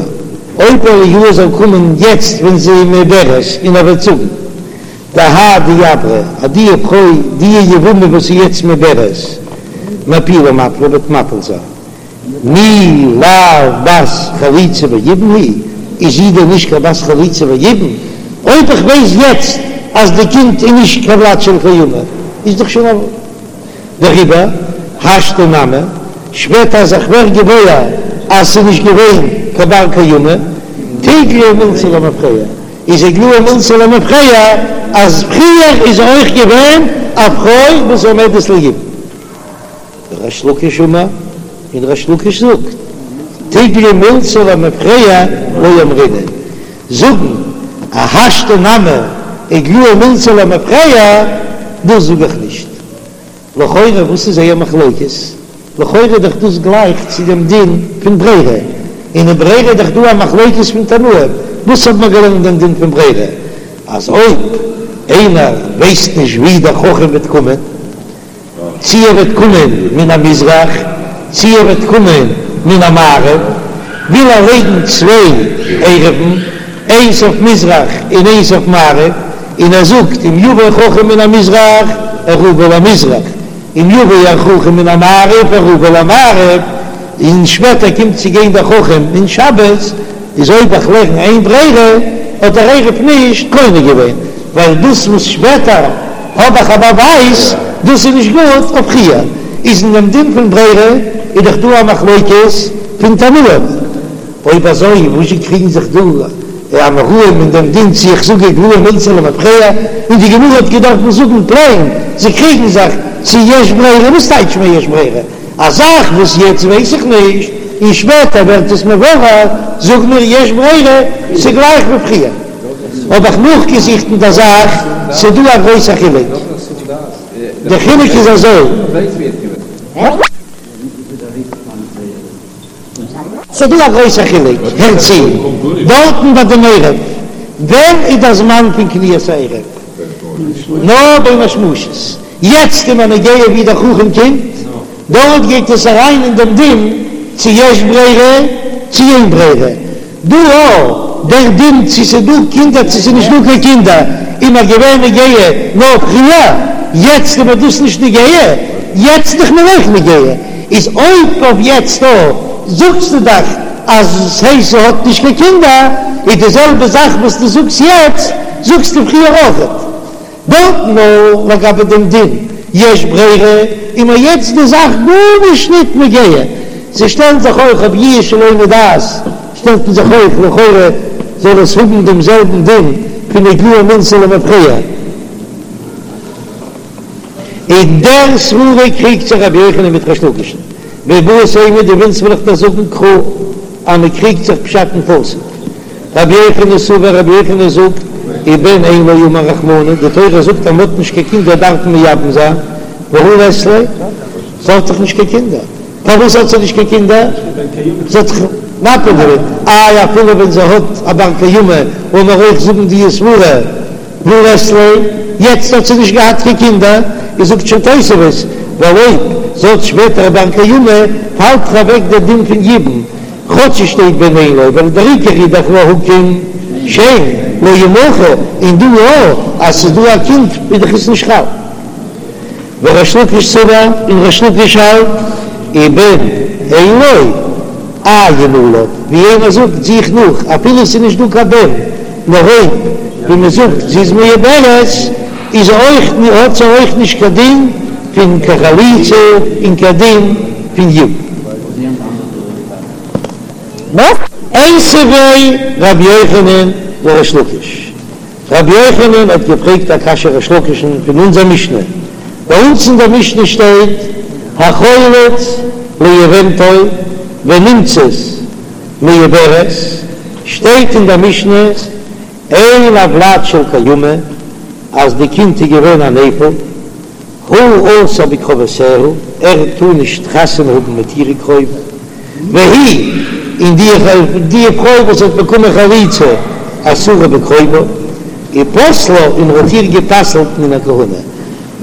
אויב אליהו זאל קומען יעצט ווען זי איז מעוברת און ער וועט זאגן דהאי דעברא אז די פרוי די יבמה וואס איז יעצט מעוברת מאפולי מפילה וועט מפיל זיין מי לאו בת חליצה ויבום היא, איז זי דען נישט קיין בת חליצה ויבום? אויב איך ווייס יעצט אז די קינד איז נישט קיין ולד של קיימא איז דאך שוין א. דעריבער השתא נמי, שפעטער אז איך ווער געוואויר אז ס'איז נישט געווען קיין בר קיימא, תיגלי מילתא למפרע, איז איגלאי מילתא למפרע אז פריער איז אויך געווען א פרוי וואס עומדת ליבום. ריש לקיש אמר, און ריש לקיש זאגט, תיגלי מילתא למפרע לא אמרינן, זאגן אז השתא נמי איגלאי מילתא למפרע, דאס זאג איך נישט. לכאורה וואס איז זייער מחלוקת? לכאורה איז דאך דאס גלייך צו דעם דין פון ברירה, און אין ברירה איז דאך דא א מחלוקת פון תנאים, וואס האט מען געלערנט דעם דין פון ברירה? אז אויב איינער ווייסט נישט ווי דער חכם וועט קומען, צי ער וועט קומען מן המזרח, צי ער וועט קומען מן המערב, וויל ער לייגן צוויי עירובין, איינס אויף מזרח און איינס אויף מערב, און ער זאגט אם יבוא חכם מן המזרח עירובי למזרח, אם יבוא החכם מן המערב עירובי למערב, און שפעטער קומט צו גיין דער חכם אין שבת, איז אויב איך לערן אין ברירה, האט דער עירוב נישט קונה געווען, ווייל דאס וואס שפעטער האב איך א באווייז, דאס איז נישט גוט אויף פריער, איז אין דעם דין פון ברירה איז דאך דא א מחלוקת פון תנאים, אויב אזוי וואזשע קריגן זיך דא די אמוראים אין דעם דין צו איך זאג איגלאי מילתא למפרע, און די גמרא האט געדארפט זאגן פלעין זיי קריגן זיך צו יש ברירה, וואס טייטש מיר יש ברירה? א זאך וואס יעצט ווייס איך נישט און שפעטער ווערט עס מבורר, זאג מיר יש ברירה, ס'גלייך ווי פריער. האב איך נאכגעזוכט אין דער זאך, ס'דא א גרויסע חילוק. די חילוק איז אזוי. ס'דא א גרויסע חילוק, הער צו, דארטן ביי דעם עירוב, ווען איז דער זמן פון קניית העירוב? נאר בין השמשות. יעצט איז מיר נוגע ווי דער חכם קומט, דארט גייט עס אריין אין דעם דין צו יש ברירה צו אין ברירה, דא אויך דער דין צו ס'איז דא קינדער צו ס'איז נישט דא קיין קינדער איז מיר געווען נוגע נאר פריער, יעצט איז מיר דאס נישט נוגע, יעצט איז מיר אויך נוגע, איז אויב אויף יעצט אויך זאגסטו דאך אז ס'הייסט זי האט נישט קיין קינדער, איז די זעלבע זאך וואס דו זאגסט יעצט זאגסטו פריער אויכעט. דארט נאר לגבי דעם דין יש ברירה איז מיר יעצט די זאך גארנישט ניט נוגע, זיי שטעלן זיך אויך אויף יאוש שלא מדעת שטעלט מען זיך אויך לכאורה זאל עס האבן דעם זעלבן דין פון איגלאי מילתא למפרע. אין דער סברא קריגט זיך רבי יוחנן מיט ריש לקיש'ן, ואיבעית אימא דו ווילסט וועל איך דיר זאגן קרא אז מען קריגט זיך פשט אין פסוק. רבי יוחנן סבר, רבי יוחנן זאגט, ובן אין לו אמר רחמנא, די תורה זאגט אז מען האט נישט קיין קינדער דארף מען מייבם זיין, והא לית ליה, זי האט דאך נישט קיין קינדער, פארוואס האט זי נישט קיין קינדער? זי האט דאך מפיל געווען, איי אפילו ווען זי האט א בר קיימא, לאמיר אויך זאגן די סברא, והא לית ליה, יעצט האט זי נישט געהאט קיין קינדער, איז זאגט שוין תוספות, ווייל אויב זי האט שפעטער א בר קיימא, פאלט דאך אוועק דער דין פון יבום, כאטש עס שטייט בן אין לו, ווייל דער עיקר איז דאך להקים שם לא ימחה, און דא יא, אז ס'איז דא א קינד איז דאך עס נישט חל. וריש לקיש סבר, און ריש לקיש האלט, ובן אין לו, עיין עליו, ווי איינער זאגט זוך נאך, אפילו עס איז נישט דא קיין בן, נאר אויב ווי מען זאגט זי איז מעוברת, איז אויך האט זי אויך נישט קיין דין פון קיין חליצה און קיין דין פון יבום. איתיביה רבי יוחנן לריש לקיש, רבי יוחנן האט געפרעגט א קשיא ריש לקיש'ן פון אונזער משנה, ביי אונז אין דער משנה שטייט החולץ ליבמתו ונמצאת מעוברת, שטייט אין דער משנה אין הולד של קיימא אז די קינד איז געווען א נפל, הוא אסור בקרובותיה, ער טאר נישט חתונה האבן מיט אירע קרובים, והיא, און די די פרוי וואס האט באקומען חליצה, אסורה בקרוביו, ופסלה, און ער האט איר גע'פסל'ט מן הכהונה.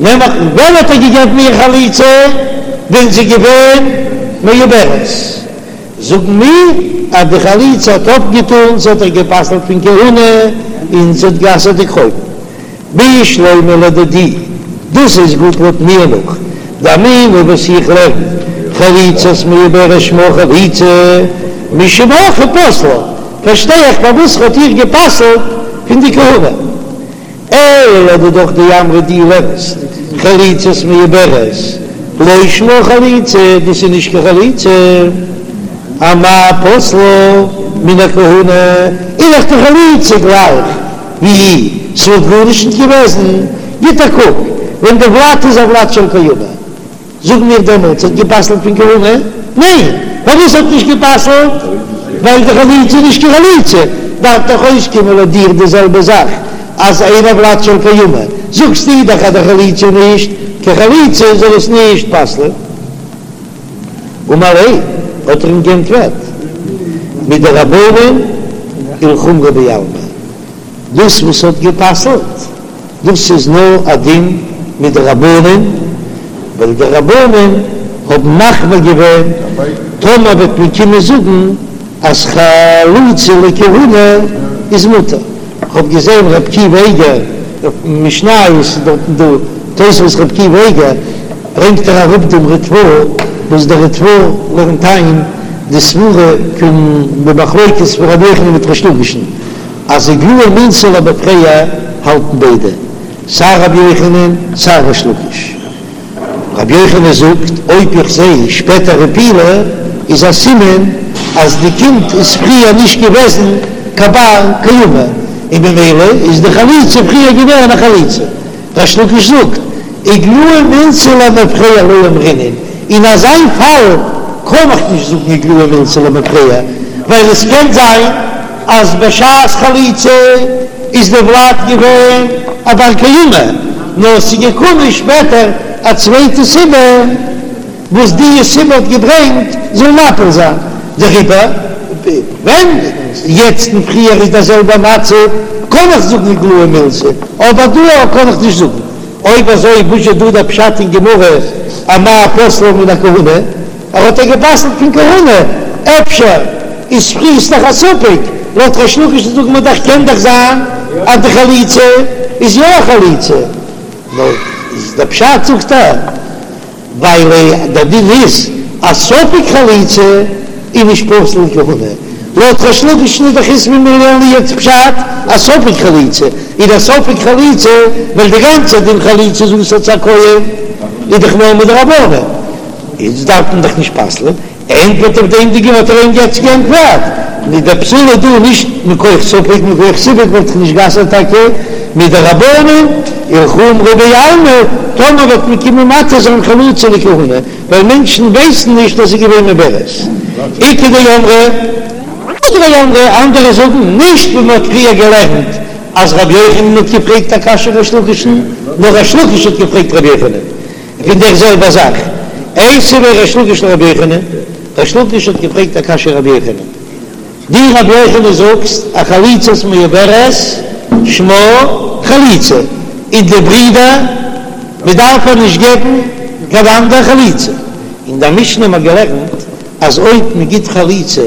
נעמליך, ווען האט ער געגעבן איר חליצה? ווען זי איז געווען מעוברת. זאגן מיר אז די חליצה האט אויפגעטאן, ס'האט איר גע'פסל'ט פון כהונה און ס'האט גע'אסר'ט די קרובים. בשלמא לדידי, דאס איז גוט לויט מיר נאך דאמינא וואס איך לערן, חליצת מעוברת שמה חליצה, משום הכי פסלה, פארשטיי איך פארוואס ר'האט איר גע'פסל'ט פון די כהונה. אלא לדידך דאמרת דו לערנסט חליצת מעוברת לא שמה חליצה, דאס איז נישט קיין חליצה, אמאי פסלה מן הכהונה, איז דאך די חליצה גלייך ווי ס'וואלט גארנישט נישט געוועזן, גיט א קוק ווען די ולד איז א ולד של קיימא. זאג מיר דעמאלטס האט גע'פסל'ט פון כהונה? ניין! פארוואס האט נישט גע'פסל'ט? ווייל די חליצה איז נישט קיין חליצה, דארף דאך אויסקומען לויט דיר די זעלבע זאך אז אינה ולד של קיימא, זאגסטו דאך אז די חליצה איז נישט קיין חליצה זאל עס נישט פסל'ען. אמר ליה, האט ער אים גענטפערט, מדרבנן ולחומרא בעלמא, דאס וואס האט גע'פסל'ט דאס איז נאר א דין מדרבנן, ווייל די רבנן האבן מחמיר געווען טאמער וועט מען קומען זאגן אז חלוצה לכהונה איז מותר. כ'האב געזען ר' עקיבא איגר אויף משניות איז דארטן דא תוספות ר' עקיבא איגר ברענגט ער אראפ דעם ריטבא וואס דער ריטבא לערנט איין די סברה פון די מחלוקת פון רבי יוחנן מיט ריש לקיש'ן. אז איגלאי מילתא למפרע האלטן ביידע, סיי רבי יוחנן סיי ריש לקיש. רבי יוחנן זאגט, אויב איך זע שפעטער הפילה איז א סימן אז די קינד איז פריער נישט געוועזן קיין בר קיימא, און ממילא איז די חליצה פריער געווען א חליצה. ריש לקיש זאגט, איגלאי מילתא למפרע לא אמרינן, אין אזא פאל קען איך נישט זאגן איגלאי מילתא למפרע, ווייל עס קען זיין אז בשעת חליצה איז די ולד געווען א בר קיימא, נאר עס איז געקומען שפעטער א צווייטע סיבה וואס די סיבה האט געברענגט זאל מפיל זיין, דעריבער ווען יעצט און פריער איז דער זעלבער מצב קען איך זאגן איגלאי מילתא, אבער דא קען איך נישט זאגן. אויב אזוי וואס איז דא דער פשט אין גמרא אמאי פסלה מן הכהונה? ער האט איר גע'פסל'ט פון כהונה, אפשר איז פריער איז דאך א ספק, לויט ריש לקיש זאגט מען דאך קען דאך זיין אז די חליצה איז יא א חליצה, נאר איז דער פשט זאגט ער ווייל דער דין איז אז ספק חליצה איז נישט פסול לכהונה, לויט ריש לקיש איז דאך איז ווי מיר לערנען יעצט פשט אז ספק חליצה איז דער ספק חליצה ווייל די גאנצע דין חליצה איז אסור צו א כהן איז דאך נאר מדרבנן. איצט דארף מען דאך נישט פסל'ען, ענטפערט אויף דעם די גמ' האט ער אים יעצט גענטפערט, נישט דער פסול איז דא נישט מכח ספק, מכח סיפק וואלט איך נישט גע'אסר'ט טאקע מדרבנן ולחומרא בעלמא, טאמער וועט מען קומען מתיר זיין חלוצה לכהונה, ווייל מענטשן ווייסן נישט אז זי איז געווען מעוברת. איכא דאמרי, איכא דאמרי, אנדערע זאגן נישט ווי מען האט פריער געלערנט אז רבי יוחנן האט געפרעגט א קשיא ריש לקיש'ן, נאר ריש לקיש האט געפרעגט רבי יוחנן. פון דער זעלבער זאך. איתיביה ריש לקיש לרבי יוחנן, ריש לקיש האט געפרעגט א קשיא רבי יוחנן, דו רבי יוחנן זאגסט א חליצת מעוברת שמה חליצה, און די ברידער מען דארף איר נישט געבן קיין אנדער חליצה, אין דער משנה האט מען געלערנט אז אויב מען גיט חליצה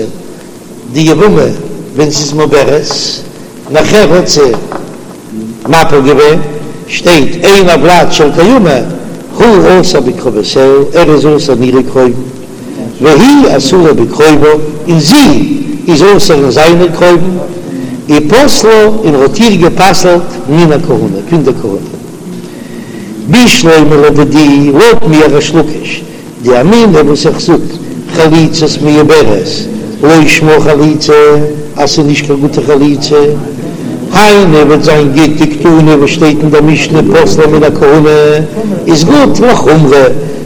די יבמה ווען ס'איז מעוברת, נאכער האט זי מפיל געווען, שטייט אין הולד של קיימא, הוא אסור בקרובותיה, ער איז אסור אין אירע קרובים, והיא אסורה בקרוביו, און זי איז אסור אין זיינע קרובים, ופסלה, און האט איר גע'פסל'ט מן הכהונה, פון די כהונה. בשלמא לדידי, לויט מיר ריש לקיש, דאמינא וואס איך זאג, חליצת מעוברת, לא שמה חליצה, אז ס'איז נישט קיין גוטע חליצה, היינו וועט זיין גוט דקתני וואס שטייט אין דער משנה פסלה מן הכהונה איז גוט לחומרא,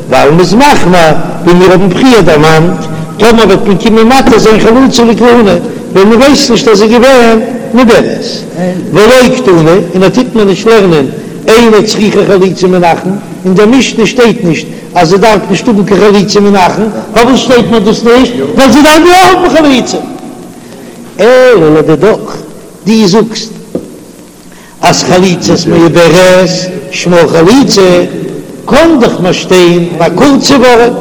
ווייל מ'איז מחמיר, ווי מיר האבן פריער דערמאנט, טאמער וועט מען קומען מתיר זיין חלוצה לכהונה, ווען מ'ווייסט נישט אז זי איז געווען מעוברת. ולא קתני, און ער טוט מיר נישט לערנען אינה צריכה חליצה מן האחין, אין דער משנה שטייט נישט אז זי דארף נישט האבן קיין חליצה מן האחין, פארוואס שטייט מיר דאס נישט? ווייל זי דארף יא האבן חליצה. אלא לדידך, דו זאגסט אז חליצת מעוברת שמה חליצה, קען דאך מיר שטיין א קורצע ווארט,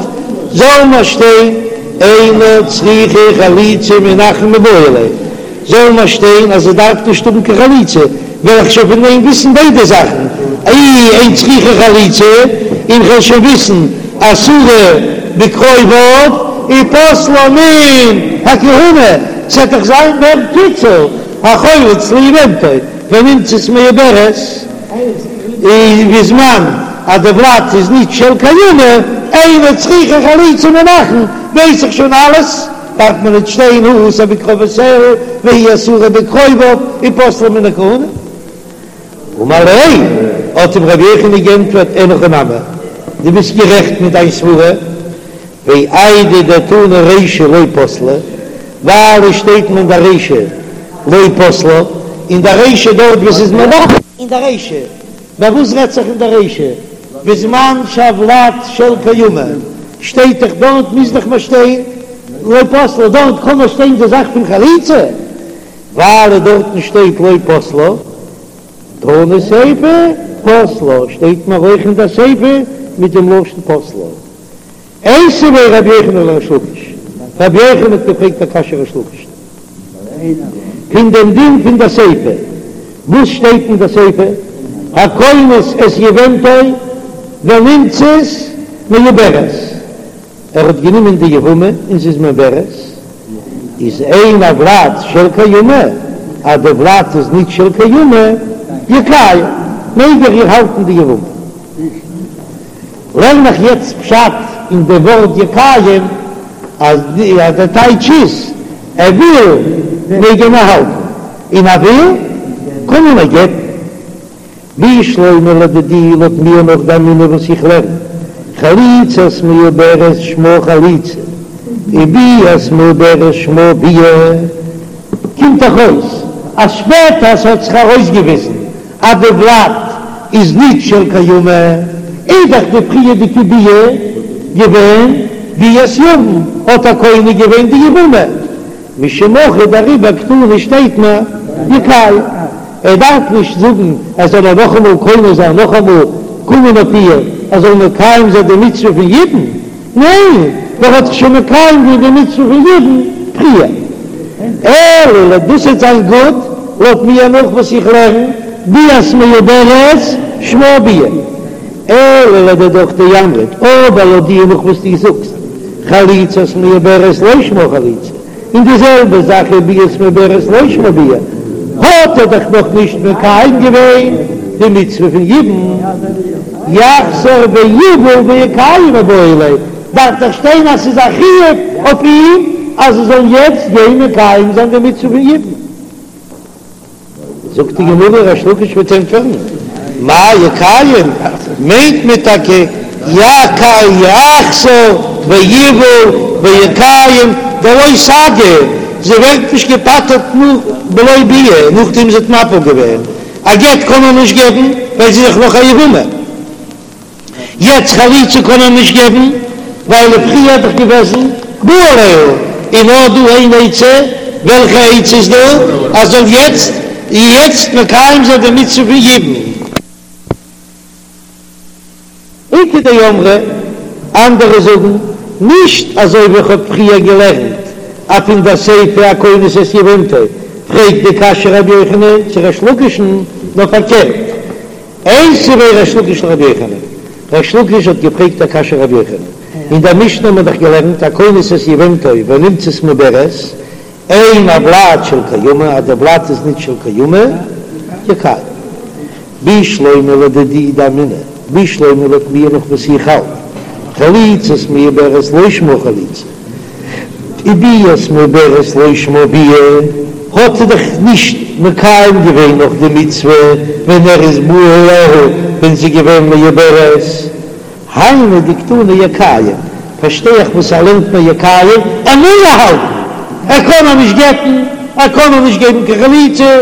זאל מיר שטיין. אינה צריכה חליצה מן האחין מיבעי ליה, זאל מיר שטיין אז זי דארף נישט האבן קיין חליצה, וועל איך שוין פון דעם וויסן ביידע זאכן, אי אין צריכה חליצה, און כ'וועל שוין וויסן אסורה בקרוביו ופוסלה מן הכהונה, ס'עט דאך זיין מער קיצור, החולץ ליבמתו ונמצאת מעוברת, און בזמן אז די ולד איז נישט של קיימא, אינה צריכה חליצה מן האחין, ווייס איך שוין אלעס. דארף מען ניט שטיין הוא אסור בקרובותיה והיא אסורה בקרוביו ופוסלה מן הכהונה. אמר ליה, האט אים רבי יוחנן גענטפערט, אין הכי נמי, דו ביסט גערעכט מיט דיין סברה, ואיידי דתנא רישא לא פסלה, ווייל עס שטייט אין דער רישא לא פסלה, אין דער רישא דארט וואס איז מלאך. אין דער רישא, ביי וואס רעדט זיך אין דער רישא? בזמן שהולד של קיימא שטייט דאך דארט מוז דאך מען שטיין לא פסלה, דארט קען מען שטיין די זאך פון חליצה, ווייל דארטן שטייט לא פסלה, תנא סיפא פסלה, שטייט מיר אויך אין דער סיפא מיט דעם לשון פסלה. איתיביה רבי יוחנן לריש לקיש, רבי יוחנן האט געפרעגט א קשיא ריש לקיש פון דעם דין פון דער סיפא, וואס שטייט אין דער סיפא, הכונס את יבמתו ונמצאת מעוברת, ער האט גענומען די יבמה און זי איז מעוברת, איז אין הולד של קיימא, אז די ולד איז ניט של קיימא, יקיים, מעג ער איר האלטן די יבמה. לערן איך יעצט פשט אין די ווארט יקיים אז די טייטש איז ער וויל מעג ער איר האלטן און ער וויל קען ער איר גט'ן. בשלמא לדידי לויט מיר נאך דאמינא וואס איך לערן חליצת מעוברת שמה חליצה וביאת מעוברת שמה ביאה קומט דאך אויס אז שפעטער ס'האט זיך ארויסגעוויזן אז די ולד איז ניט של קיימא, איז דאך די פריערדיגע ביאה געווען ביאת יבם, האט ער קונה געווען די יבמה, משום הכי דעריבער קתני שטייט מיר יקיים, ער דארף נישט זאגן ער זאל איר נאכאמאל קונה זיין נאכאמאל קומען אויף איר ער זאל מקיים זיין די מצוה פון יבום, ניין, ער האט דאך שוין מקיים געווען די מצוה פון יבום פריער. אלא לויט דאס וועט זיין גוט לויט מיר נאך וואס איך לערן ביאת מעוברת שמה ביאה. אלא לדידך דאמרת, אבער לויט דיר נאך וואס דו זאגסט חליצת מעוברת לא שמה חליצה, און די זעלבע זאך איז ביאת מעוברת לא שמה ביאה, האט ער דאך נאך נישט מקיים געווען די מצוה פון יבום, יחזור ויבעול ויקיים מיבעי ליה, דארף דאך שטיין אז ס'איז א חיוב אויף אים אז ער זאל יעצט גיין מקיים זיין די מצוה פון יבום. זאגט די גמרא, ריש לקיש וועט ענטפערן, מאי יקיים, מיינט מען טאקע יחזור ויבעול ויקיים דלא סגי, זי ווערט נישט געפטר'ט נאך בלא ביאה, נאכדעם זי האט מפיל געווען, א גט קען מען נישט געבן ווייל זי איז דאך נאך א יבמה. יעצט חליצה קען ער נישט געבן ווייל פריער איז דאך געוועזן בא עליה, און נאר דא איין עצה, וועלכע עצה איז דא? אז זאל יעצט יעצט מקיים זיין די מצוה פון יבום. איכא דאמרי, אנדערע זאגן, נישט אזוי ווי איך האב פריער געלערנט אז פון דער סיפא הכונס את יבמתו, פרעגט די קשיא רבי יוחנן צו ריש לקיש'ן, נאר פארקערט, איתיביה ריש לקיש לרבי יוחנן, ריש לקיש האט געפרעגט א קשיא רבי יוחנן, אין דער משנה האט מען דאך געלערנט הכונס את יבמתו ונמצאת מעוברת, אין הולד של קיימא, אז דער ולד איז ניט של קיימא, יקיים. בשלמא לדידי דאמינא, בשלמא לויט מיר נאך וואס איך האלט, חליצת מעוברת לא שמה חליצה. וביאת מעוברת לא שמה ביאה, האט ער דאך נישט מקיים געווען נאך די מצוה ווען ער איז בא עליה ווען זי איז געווען מעוברת, היינו דקתני יקיים, פארשטיי איך וואס ער לערנט מיר יקיים, ער מוז איר האלטן, ער קען איר נישט גט'ן, ער קען איר נישט געבן קיין חליצה,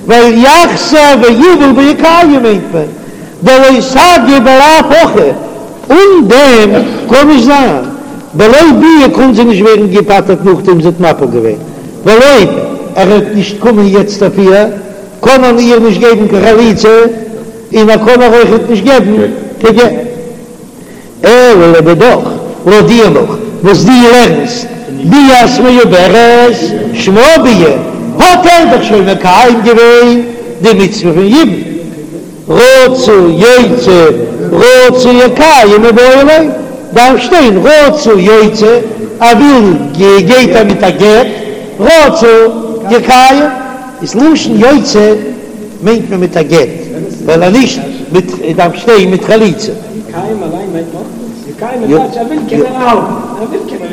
ווייל יחזור ויבעול ויקיים מיינט מען דלא סגי בלאו הכי. אן דעם קען נישט זיין, בלא ביאה קען זי נישט ווערן געפטר'ט נאכדעם זי האט מפיל געווען, ווייל אויב ער וועט נישט קומען יעצט אויף איר, קען מען איר נישט געבן קיין חליצה, און ער קען איר אויכעט נישט געבן קיין גט. אלא לדידך, לויט דיר נאך. וואס דו לערנסט ביאת מעוברת שמה ביאה, האט ער דאך שוין מקיים געווען די מצוה פון יבום, רצה יוציא רצה יקיים מיבעי ליה, דארף שטיין רצה יוציא, ער וויל גייט ער מיט א גט, רצה יקיים, איז לשון יוציא מיינט מען מיט א גט, ווייל אז נישט מיט דארף שטיין מיט חליצה.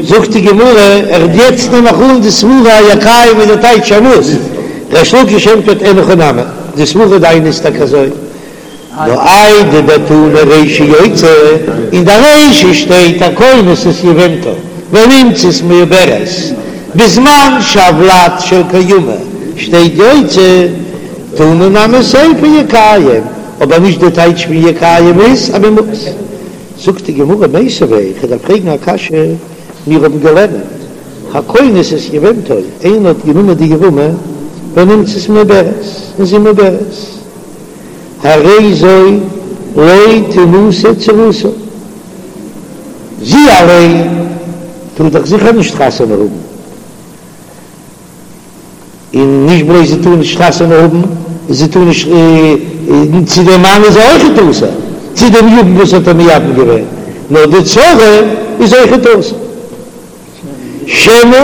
זאגט די גמרא, ער יעצט נעם איך אן די סברה אז יקיים איז די טייטש ער מוז, ריש לקיש ענטפערט אין הכי נמי, די סברה דיינע איז טאקע אזוי, נאר איידי דתנא רישא יוציא, אין די רישא שטייט הכונס את יבמתו ונמצאת מעוברת, בזמן שהולד של קיימא שטייט יוציא, תנא נמי סיפא יקיים, אבער נישט די טייטש פון יקיים איז אז מען מוז. זאגט די גמרא מיתיבי, איך דארף פרעגן א קשיא, מיר האבן געלערנט הכונס את יבמתו, איינער האט גענומען די יבמה ונמצאת מעוברת, און זי מעוברת, הרי זו לא תנשא צרתה, זי אליין טאר דאך זיכער נישט חתונה האבן, און נישט בלויז זי טאר נישט חתונה האבן, זי טאר נישט, צו דעם מאן איז זי אויכעט אסור, צו דעם יבם וואס האט איר מייבם געווען, נאר די צרה איז אויכעט אסור. שמא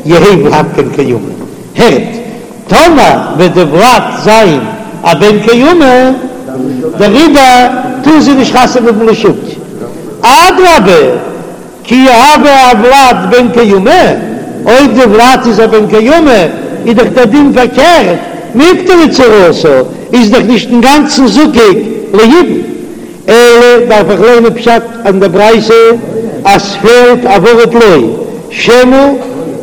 יהא ולד בן קיימא, הערט, טאמער וועט די ולד זיין א בן קיימא, דעריבער טאר זי נישט חתונה האבן לשוק, אדרבה, כי הוה הולד בן קיימא, אויב די ולד איז א בן קיימא איז דאך דער דין פארקערט, מיפטרא צרתה איז דאך נישט אינגאנצן זקוק ליבום, אלא דארף איך לערנען פשט אין די ברייתא אז ס'פעלט א ווארט לא, שמא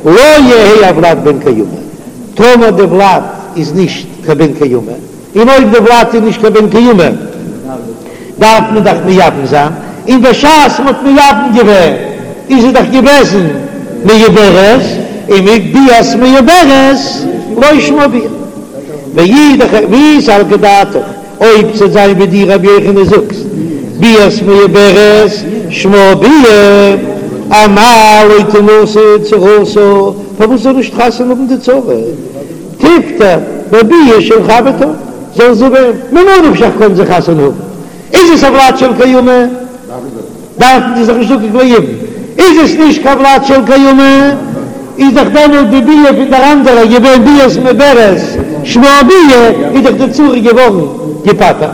לא יהא הולד בן קיימא, טאמער די ולד איז נישט קיין בן קיימא. און אויב די ולד איז נישט קיין בן קיימא דארף מען דאך מייבם זיין, און בשעת מ'האט מייבם געווען איז זי דאך געוועזן מעוברת, און ביאת מעוברת לא שמה ביאה. ואי דכ ואי סלקא דעתך, אויב ס'וועט זיין ווי דו רבי יוחנן זאגסט ביאת מעוברת שמה ביאה, אמאי לא תנשא צרתה, פארוואס זאל נישט חתונה האבן די צרה? תיפטר בביאה של חברתה, זאל זי ווערן, ממה נפשך קען זי חתונה האבן, איז עס א ולד של קיימא, דארף מען זיך נישט זקוק ליבום, איז עס נישט קיין ולד של קיימא, איז דאך דעמאלט די ביאה פון דער אנדערער געווען ביאת מעוברת שמה ביאה, איז דאך די צרה געווארן געפטר'ט.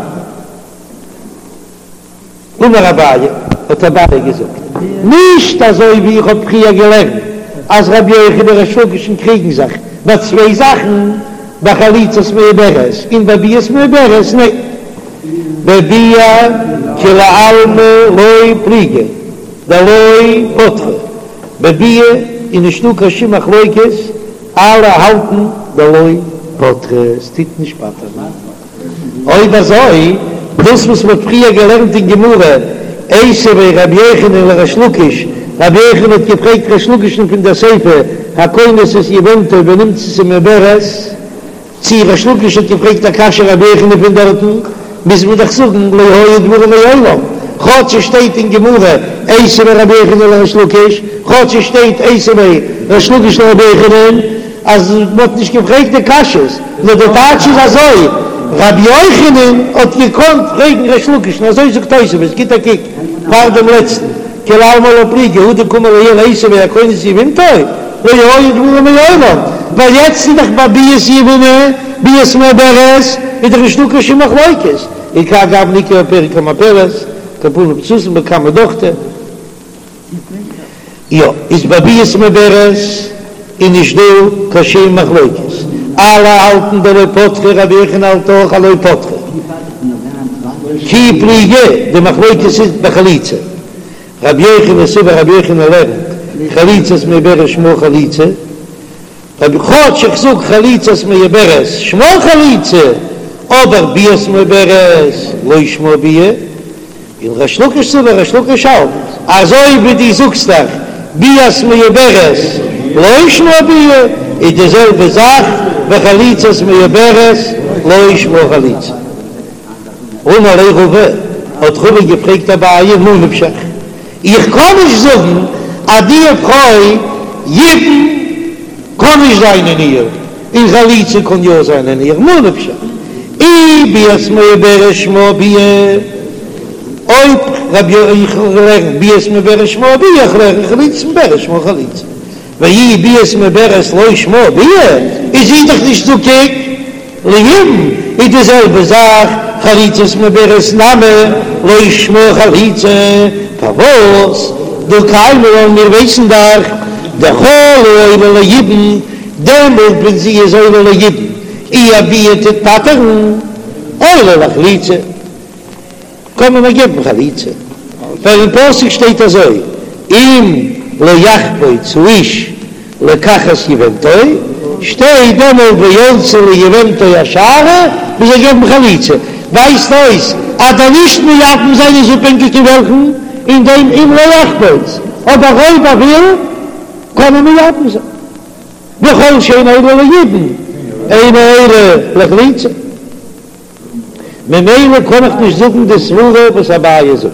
אמר אביי, האט אביי געזאגט, נישט אזוי ווי איך האב פריער געלערנט אז רבי יוחנן און ריש לקיש'ן קריגן זיך ביי צוויי זאכן, ביי חליצת מעוברת און ביי ביאת מעוברת, ניין, בביאה כולי עלמא לא פליגי דלא פטרה, בביאה איז נישטא קיין שום מחלוקת, אלע האלטן דלא פטרה, עס טוט נישט פטר'ן. אויב אזוי, דאס וואס מ'האט פריער געלערנט אין גמרא, איתיביה רבי יוחנן לריש לקיש, רבי יוחנן האט געפרעגט ריש לקיש'ן פון דער סיפא, הכונס את יבמתו ונמצאת מעוברת, צי ריש לקיש האט געפרעגט א קשיא רבי יוחנן פון דארטן, מוז מען דאך זאגן לא היו דברים מעולם, כאטש עס שטייט אין גמרא איתיביה רבי יוחנן לריש לקיש, כאטש עס שטייט איתיביה ריש לקיש לרבי יוחנן, אז מען האט נישט געפרעגט די קשיות, נאר די טייטש איז אזוי, רבי יוחנן האט געקאנט פרעגן ריש לקיש'ן, אזוי זאגט תוספות, גיט א קוק פאר דעם לעצטן, כולי עלמא לא פליגי, הא דקאמר לעיל איתיביה הכונס את יבמתו, לא היו דברים מעולם, ווייל יעצט איז דאך ביי ביאת יבמה, ביאת מעוברת, איז דאך נישטא קיין שום מחלוקת, וכהאי גוונא איכא בפרק המפלת, כפנים סתום בכמה דוכתא. יא, איז ביי ביאת מעוברת איז נישט דא קיין שום מחלוקת, אלע האלטן דלא פטרה, רבי יוחנן האלט אויך אז לא פטרה, כי פליגי, די מחלוקת איז בחליצה, רבי יוחנן סבר רבי יוחנן לערנט חליצת מעוברת שמה חליצה, רבי כאטש איך זאג חליצת מעוברת שמה חליצה, אבער ביאת מעוברת לא שמה ביאה, און ריש לקיש סבר ריש לקיש האלט אזוי ווי דו זאגסט דאך ביאת מעוברת לא שמה ביאה, איז די זעלבע זאך וחליצת מעוברת לא שמה חליצה. אמר ליה רבא, האט רבא געפרעגט אביי ממה נפשך, איך קען נישט זאגן. אז די פרוי יבום קען נישט זיין אין איר, און חליצה קען יא זיין אין איר, ממה נפשך, אי ביאת מעוברת שמה ביאה, אויב רבי יוחנן לערנט ביאת מעוברת שמה ביאה, איך לערן חליצת מעוברת שמה חליצה, ואי ביאת מעוברת לא שמה ביאה, איז זי דאך נישט זקוק ליבום, איז די זעלבע זאך חליצת מעוברת נמי לא שמה חליצה, פארוואס דהא קיימא לן מיר ווייסן דאך דכל העולה ליבום, דעמאלט ווען זי איז עולה ליבום איר ביאה טוט פטר'ן, עולה לחליצה. קען מען איר געבן חליצה, ווייל אין פסוק שטייט אזוי, אם לא יחפוץ האיש לקחת יבמתו, שטייט דעמאלט ועלתה ליבמתו השערה, מען זאל געבן חליצה, ווייזט אויס אז דער נישט מייבם זיין איז אפהענגיק אין וועלכן, אין דעם אם לא יחפוץ, אבער אויב ער וויל קען ער מייבם זיין, וכל שאינה עולה ליבום אינה עולה לחליצה. ממילא קען איך נישט זאגן די סברה וואס אביי זאגט.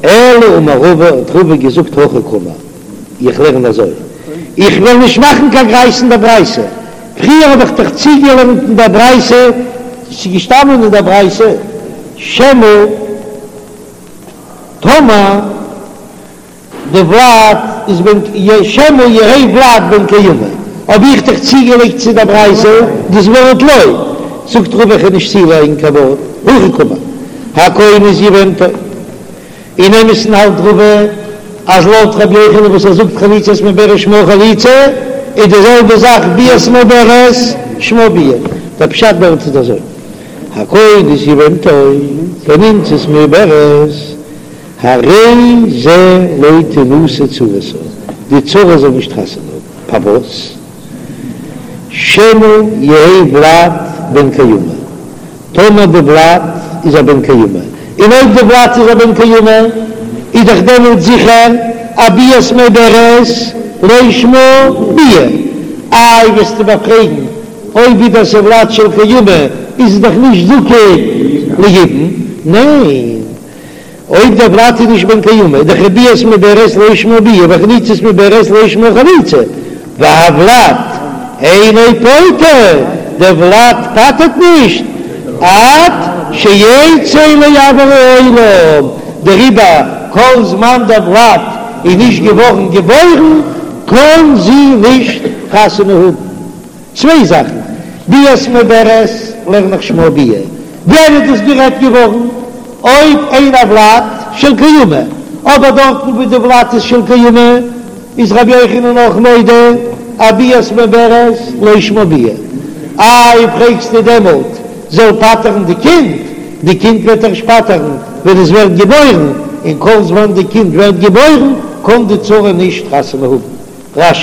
אלא אמר רבא, האט רבא געזאגט הכי קאמר, איך לערן אזוי, איך וועל נישט מאכן קיין גרייז אין דער ברייתא, פריער האב איך דאך צוגעלערנט אין דער ברייתא, ס'איז געשטאנען אין דער ברייתא, שמא טאמער. די ולד איז בן שמא יהא ולד בן קיימא, האב איך דאך צוגעלייגט צו דער ברייתא דאס ווארט לא, זאגט רבא איך וועל נישט צולייגן קיין ווארט, הכי קאמר, הכונס יבמתו, אין אמת'ן האלט רבא אז לויט רבי יוחנן וואס ער זאגט חליצת מעוברת שמה חליצה איז די זעלבע זאך ביאת מעוברת שמה ביאה, דער פשט דארט איז אזוי, הכונס יבמתו ונמצאת מעוברת. הרי זה לא תנשא צרתה, די צרה זאל נישט חתונה האבן, פארוואס? שמא יהא ולד בן קיימא, טאמער די ולד איז א בן קיימא, און אויב די ולד איז א בן קיימא, איז דאך דעמאלט זיכער א ביאת מעוברת לא שמה ביאה, איי וועסטו מיר פרעגן, אויב איז דאס א ולד של קיימא איז עס דאך נישט זקוק ליבום, ניין? אויב דער ולד איז נישט בן קיימא, איז דאך ביאת מעוברת לא שמה ביאה וחליצת מעוברת לא שמה חליצה, והולד אינו פוטר, דער ולד פטר'ט נישט עד שיצא לאויר העולם, דעריבער כל זמן דער ולד איז נישט געווארן געבוירן קען זי נישט חתונה האבן. צוויי זאכן, ביאת מעוברת לערן איך שמה ביאה, ווען איז דאס גערעדט געווארן? אויב אין הולד של קיימא, אבער דארטן וואו די ולד איז של קיימא איז רבי יוחנן אויך מודה אז ביאת מעוברת לא שמה ביאה. איי פרעגסטו דעמאלט זאל פטר'ן די קינד, די קינד וועט ערשט פטר'ן ווען עס ווערט געבוירן, און כל זמן די קינד ווערט געבוירן קען די צרה נישט חתונה האבן. רש"י.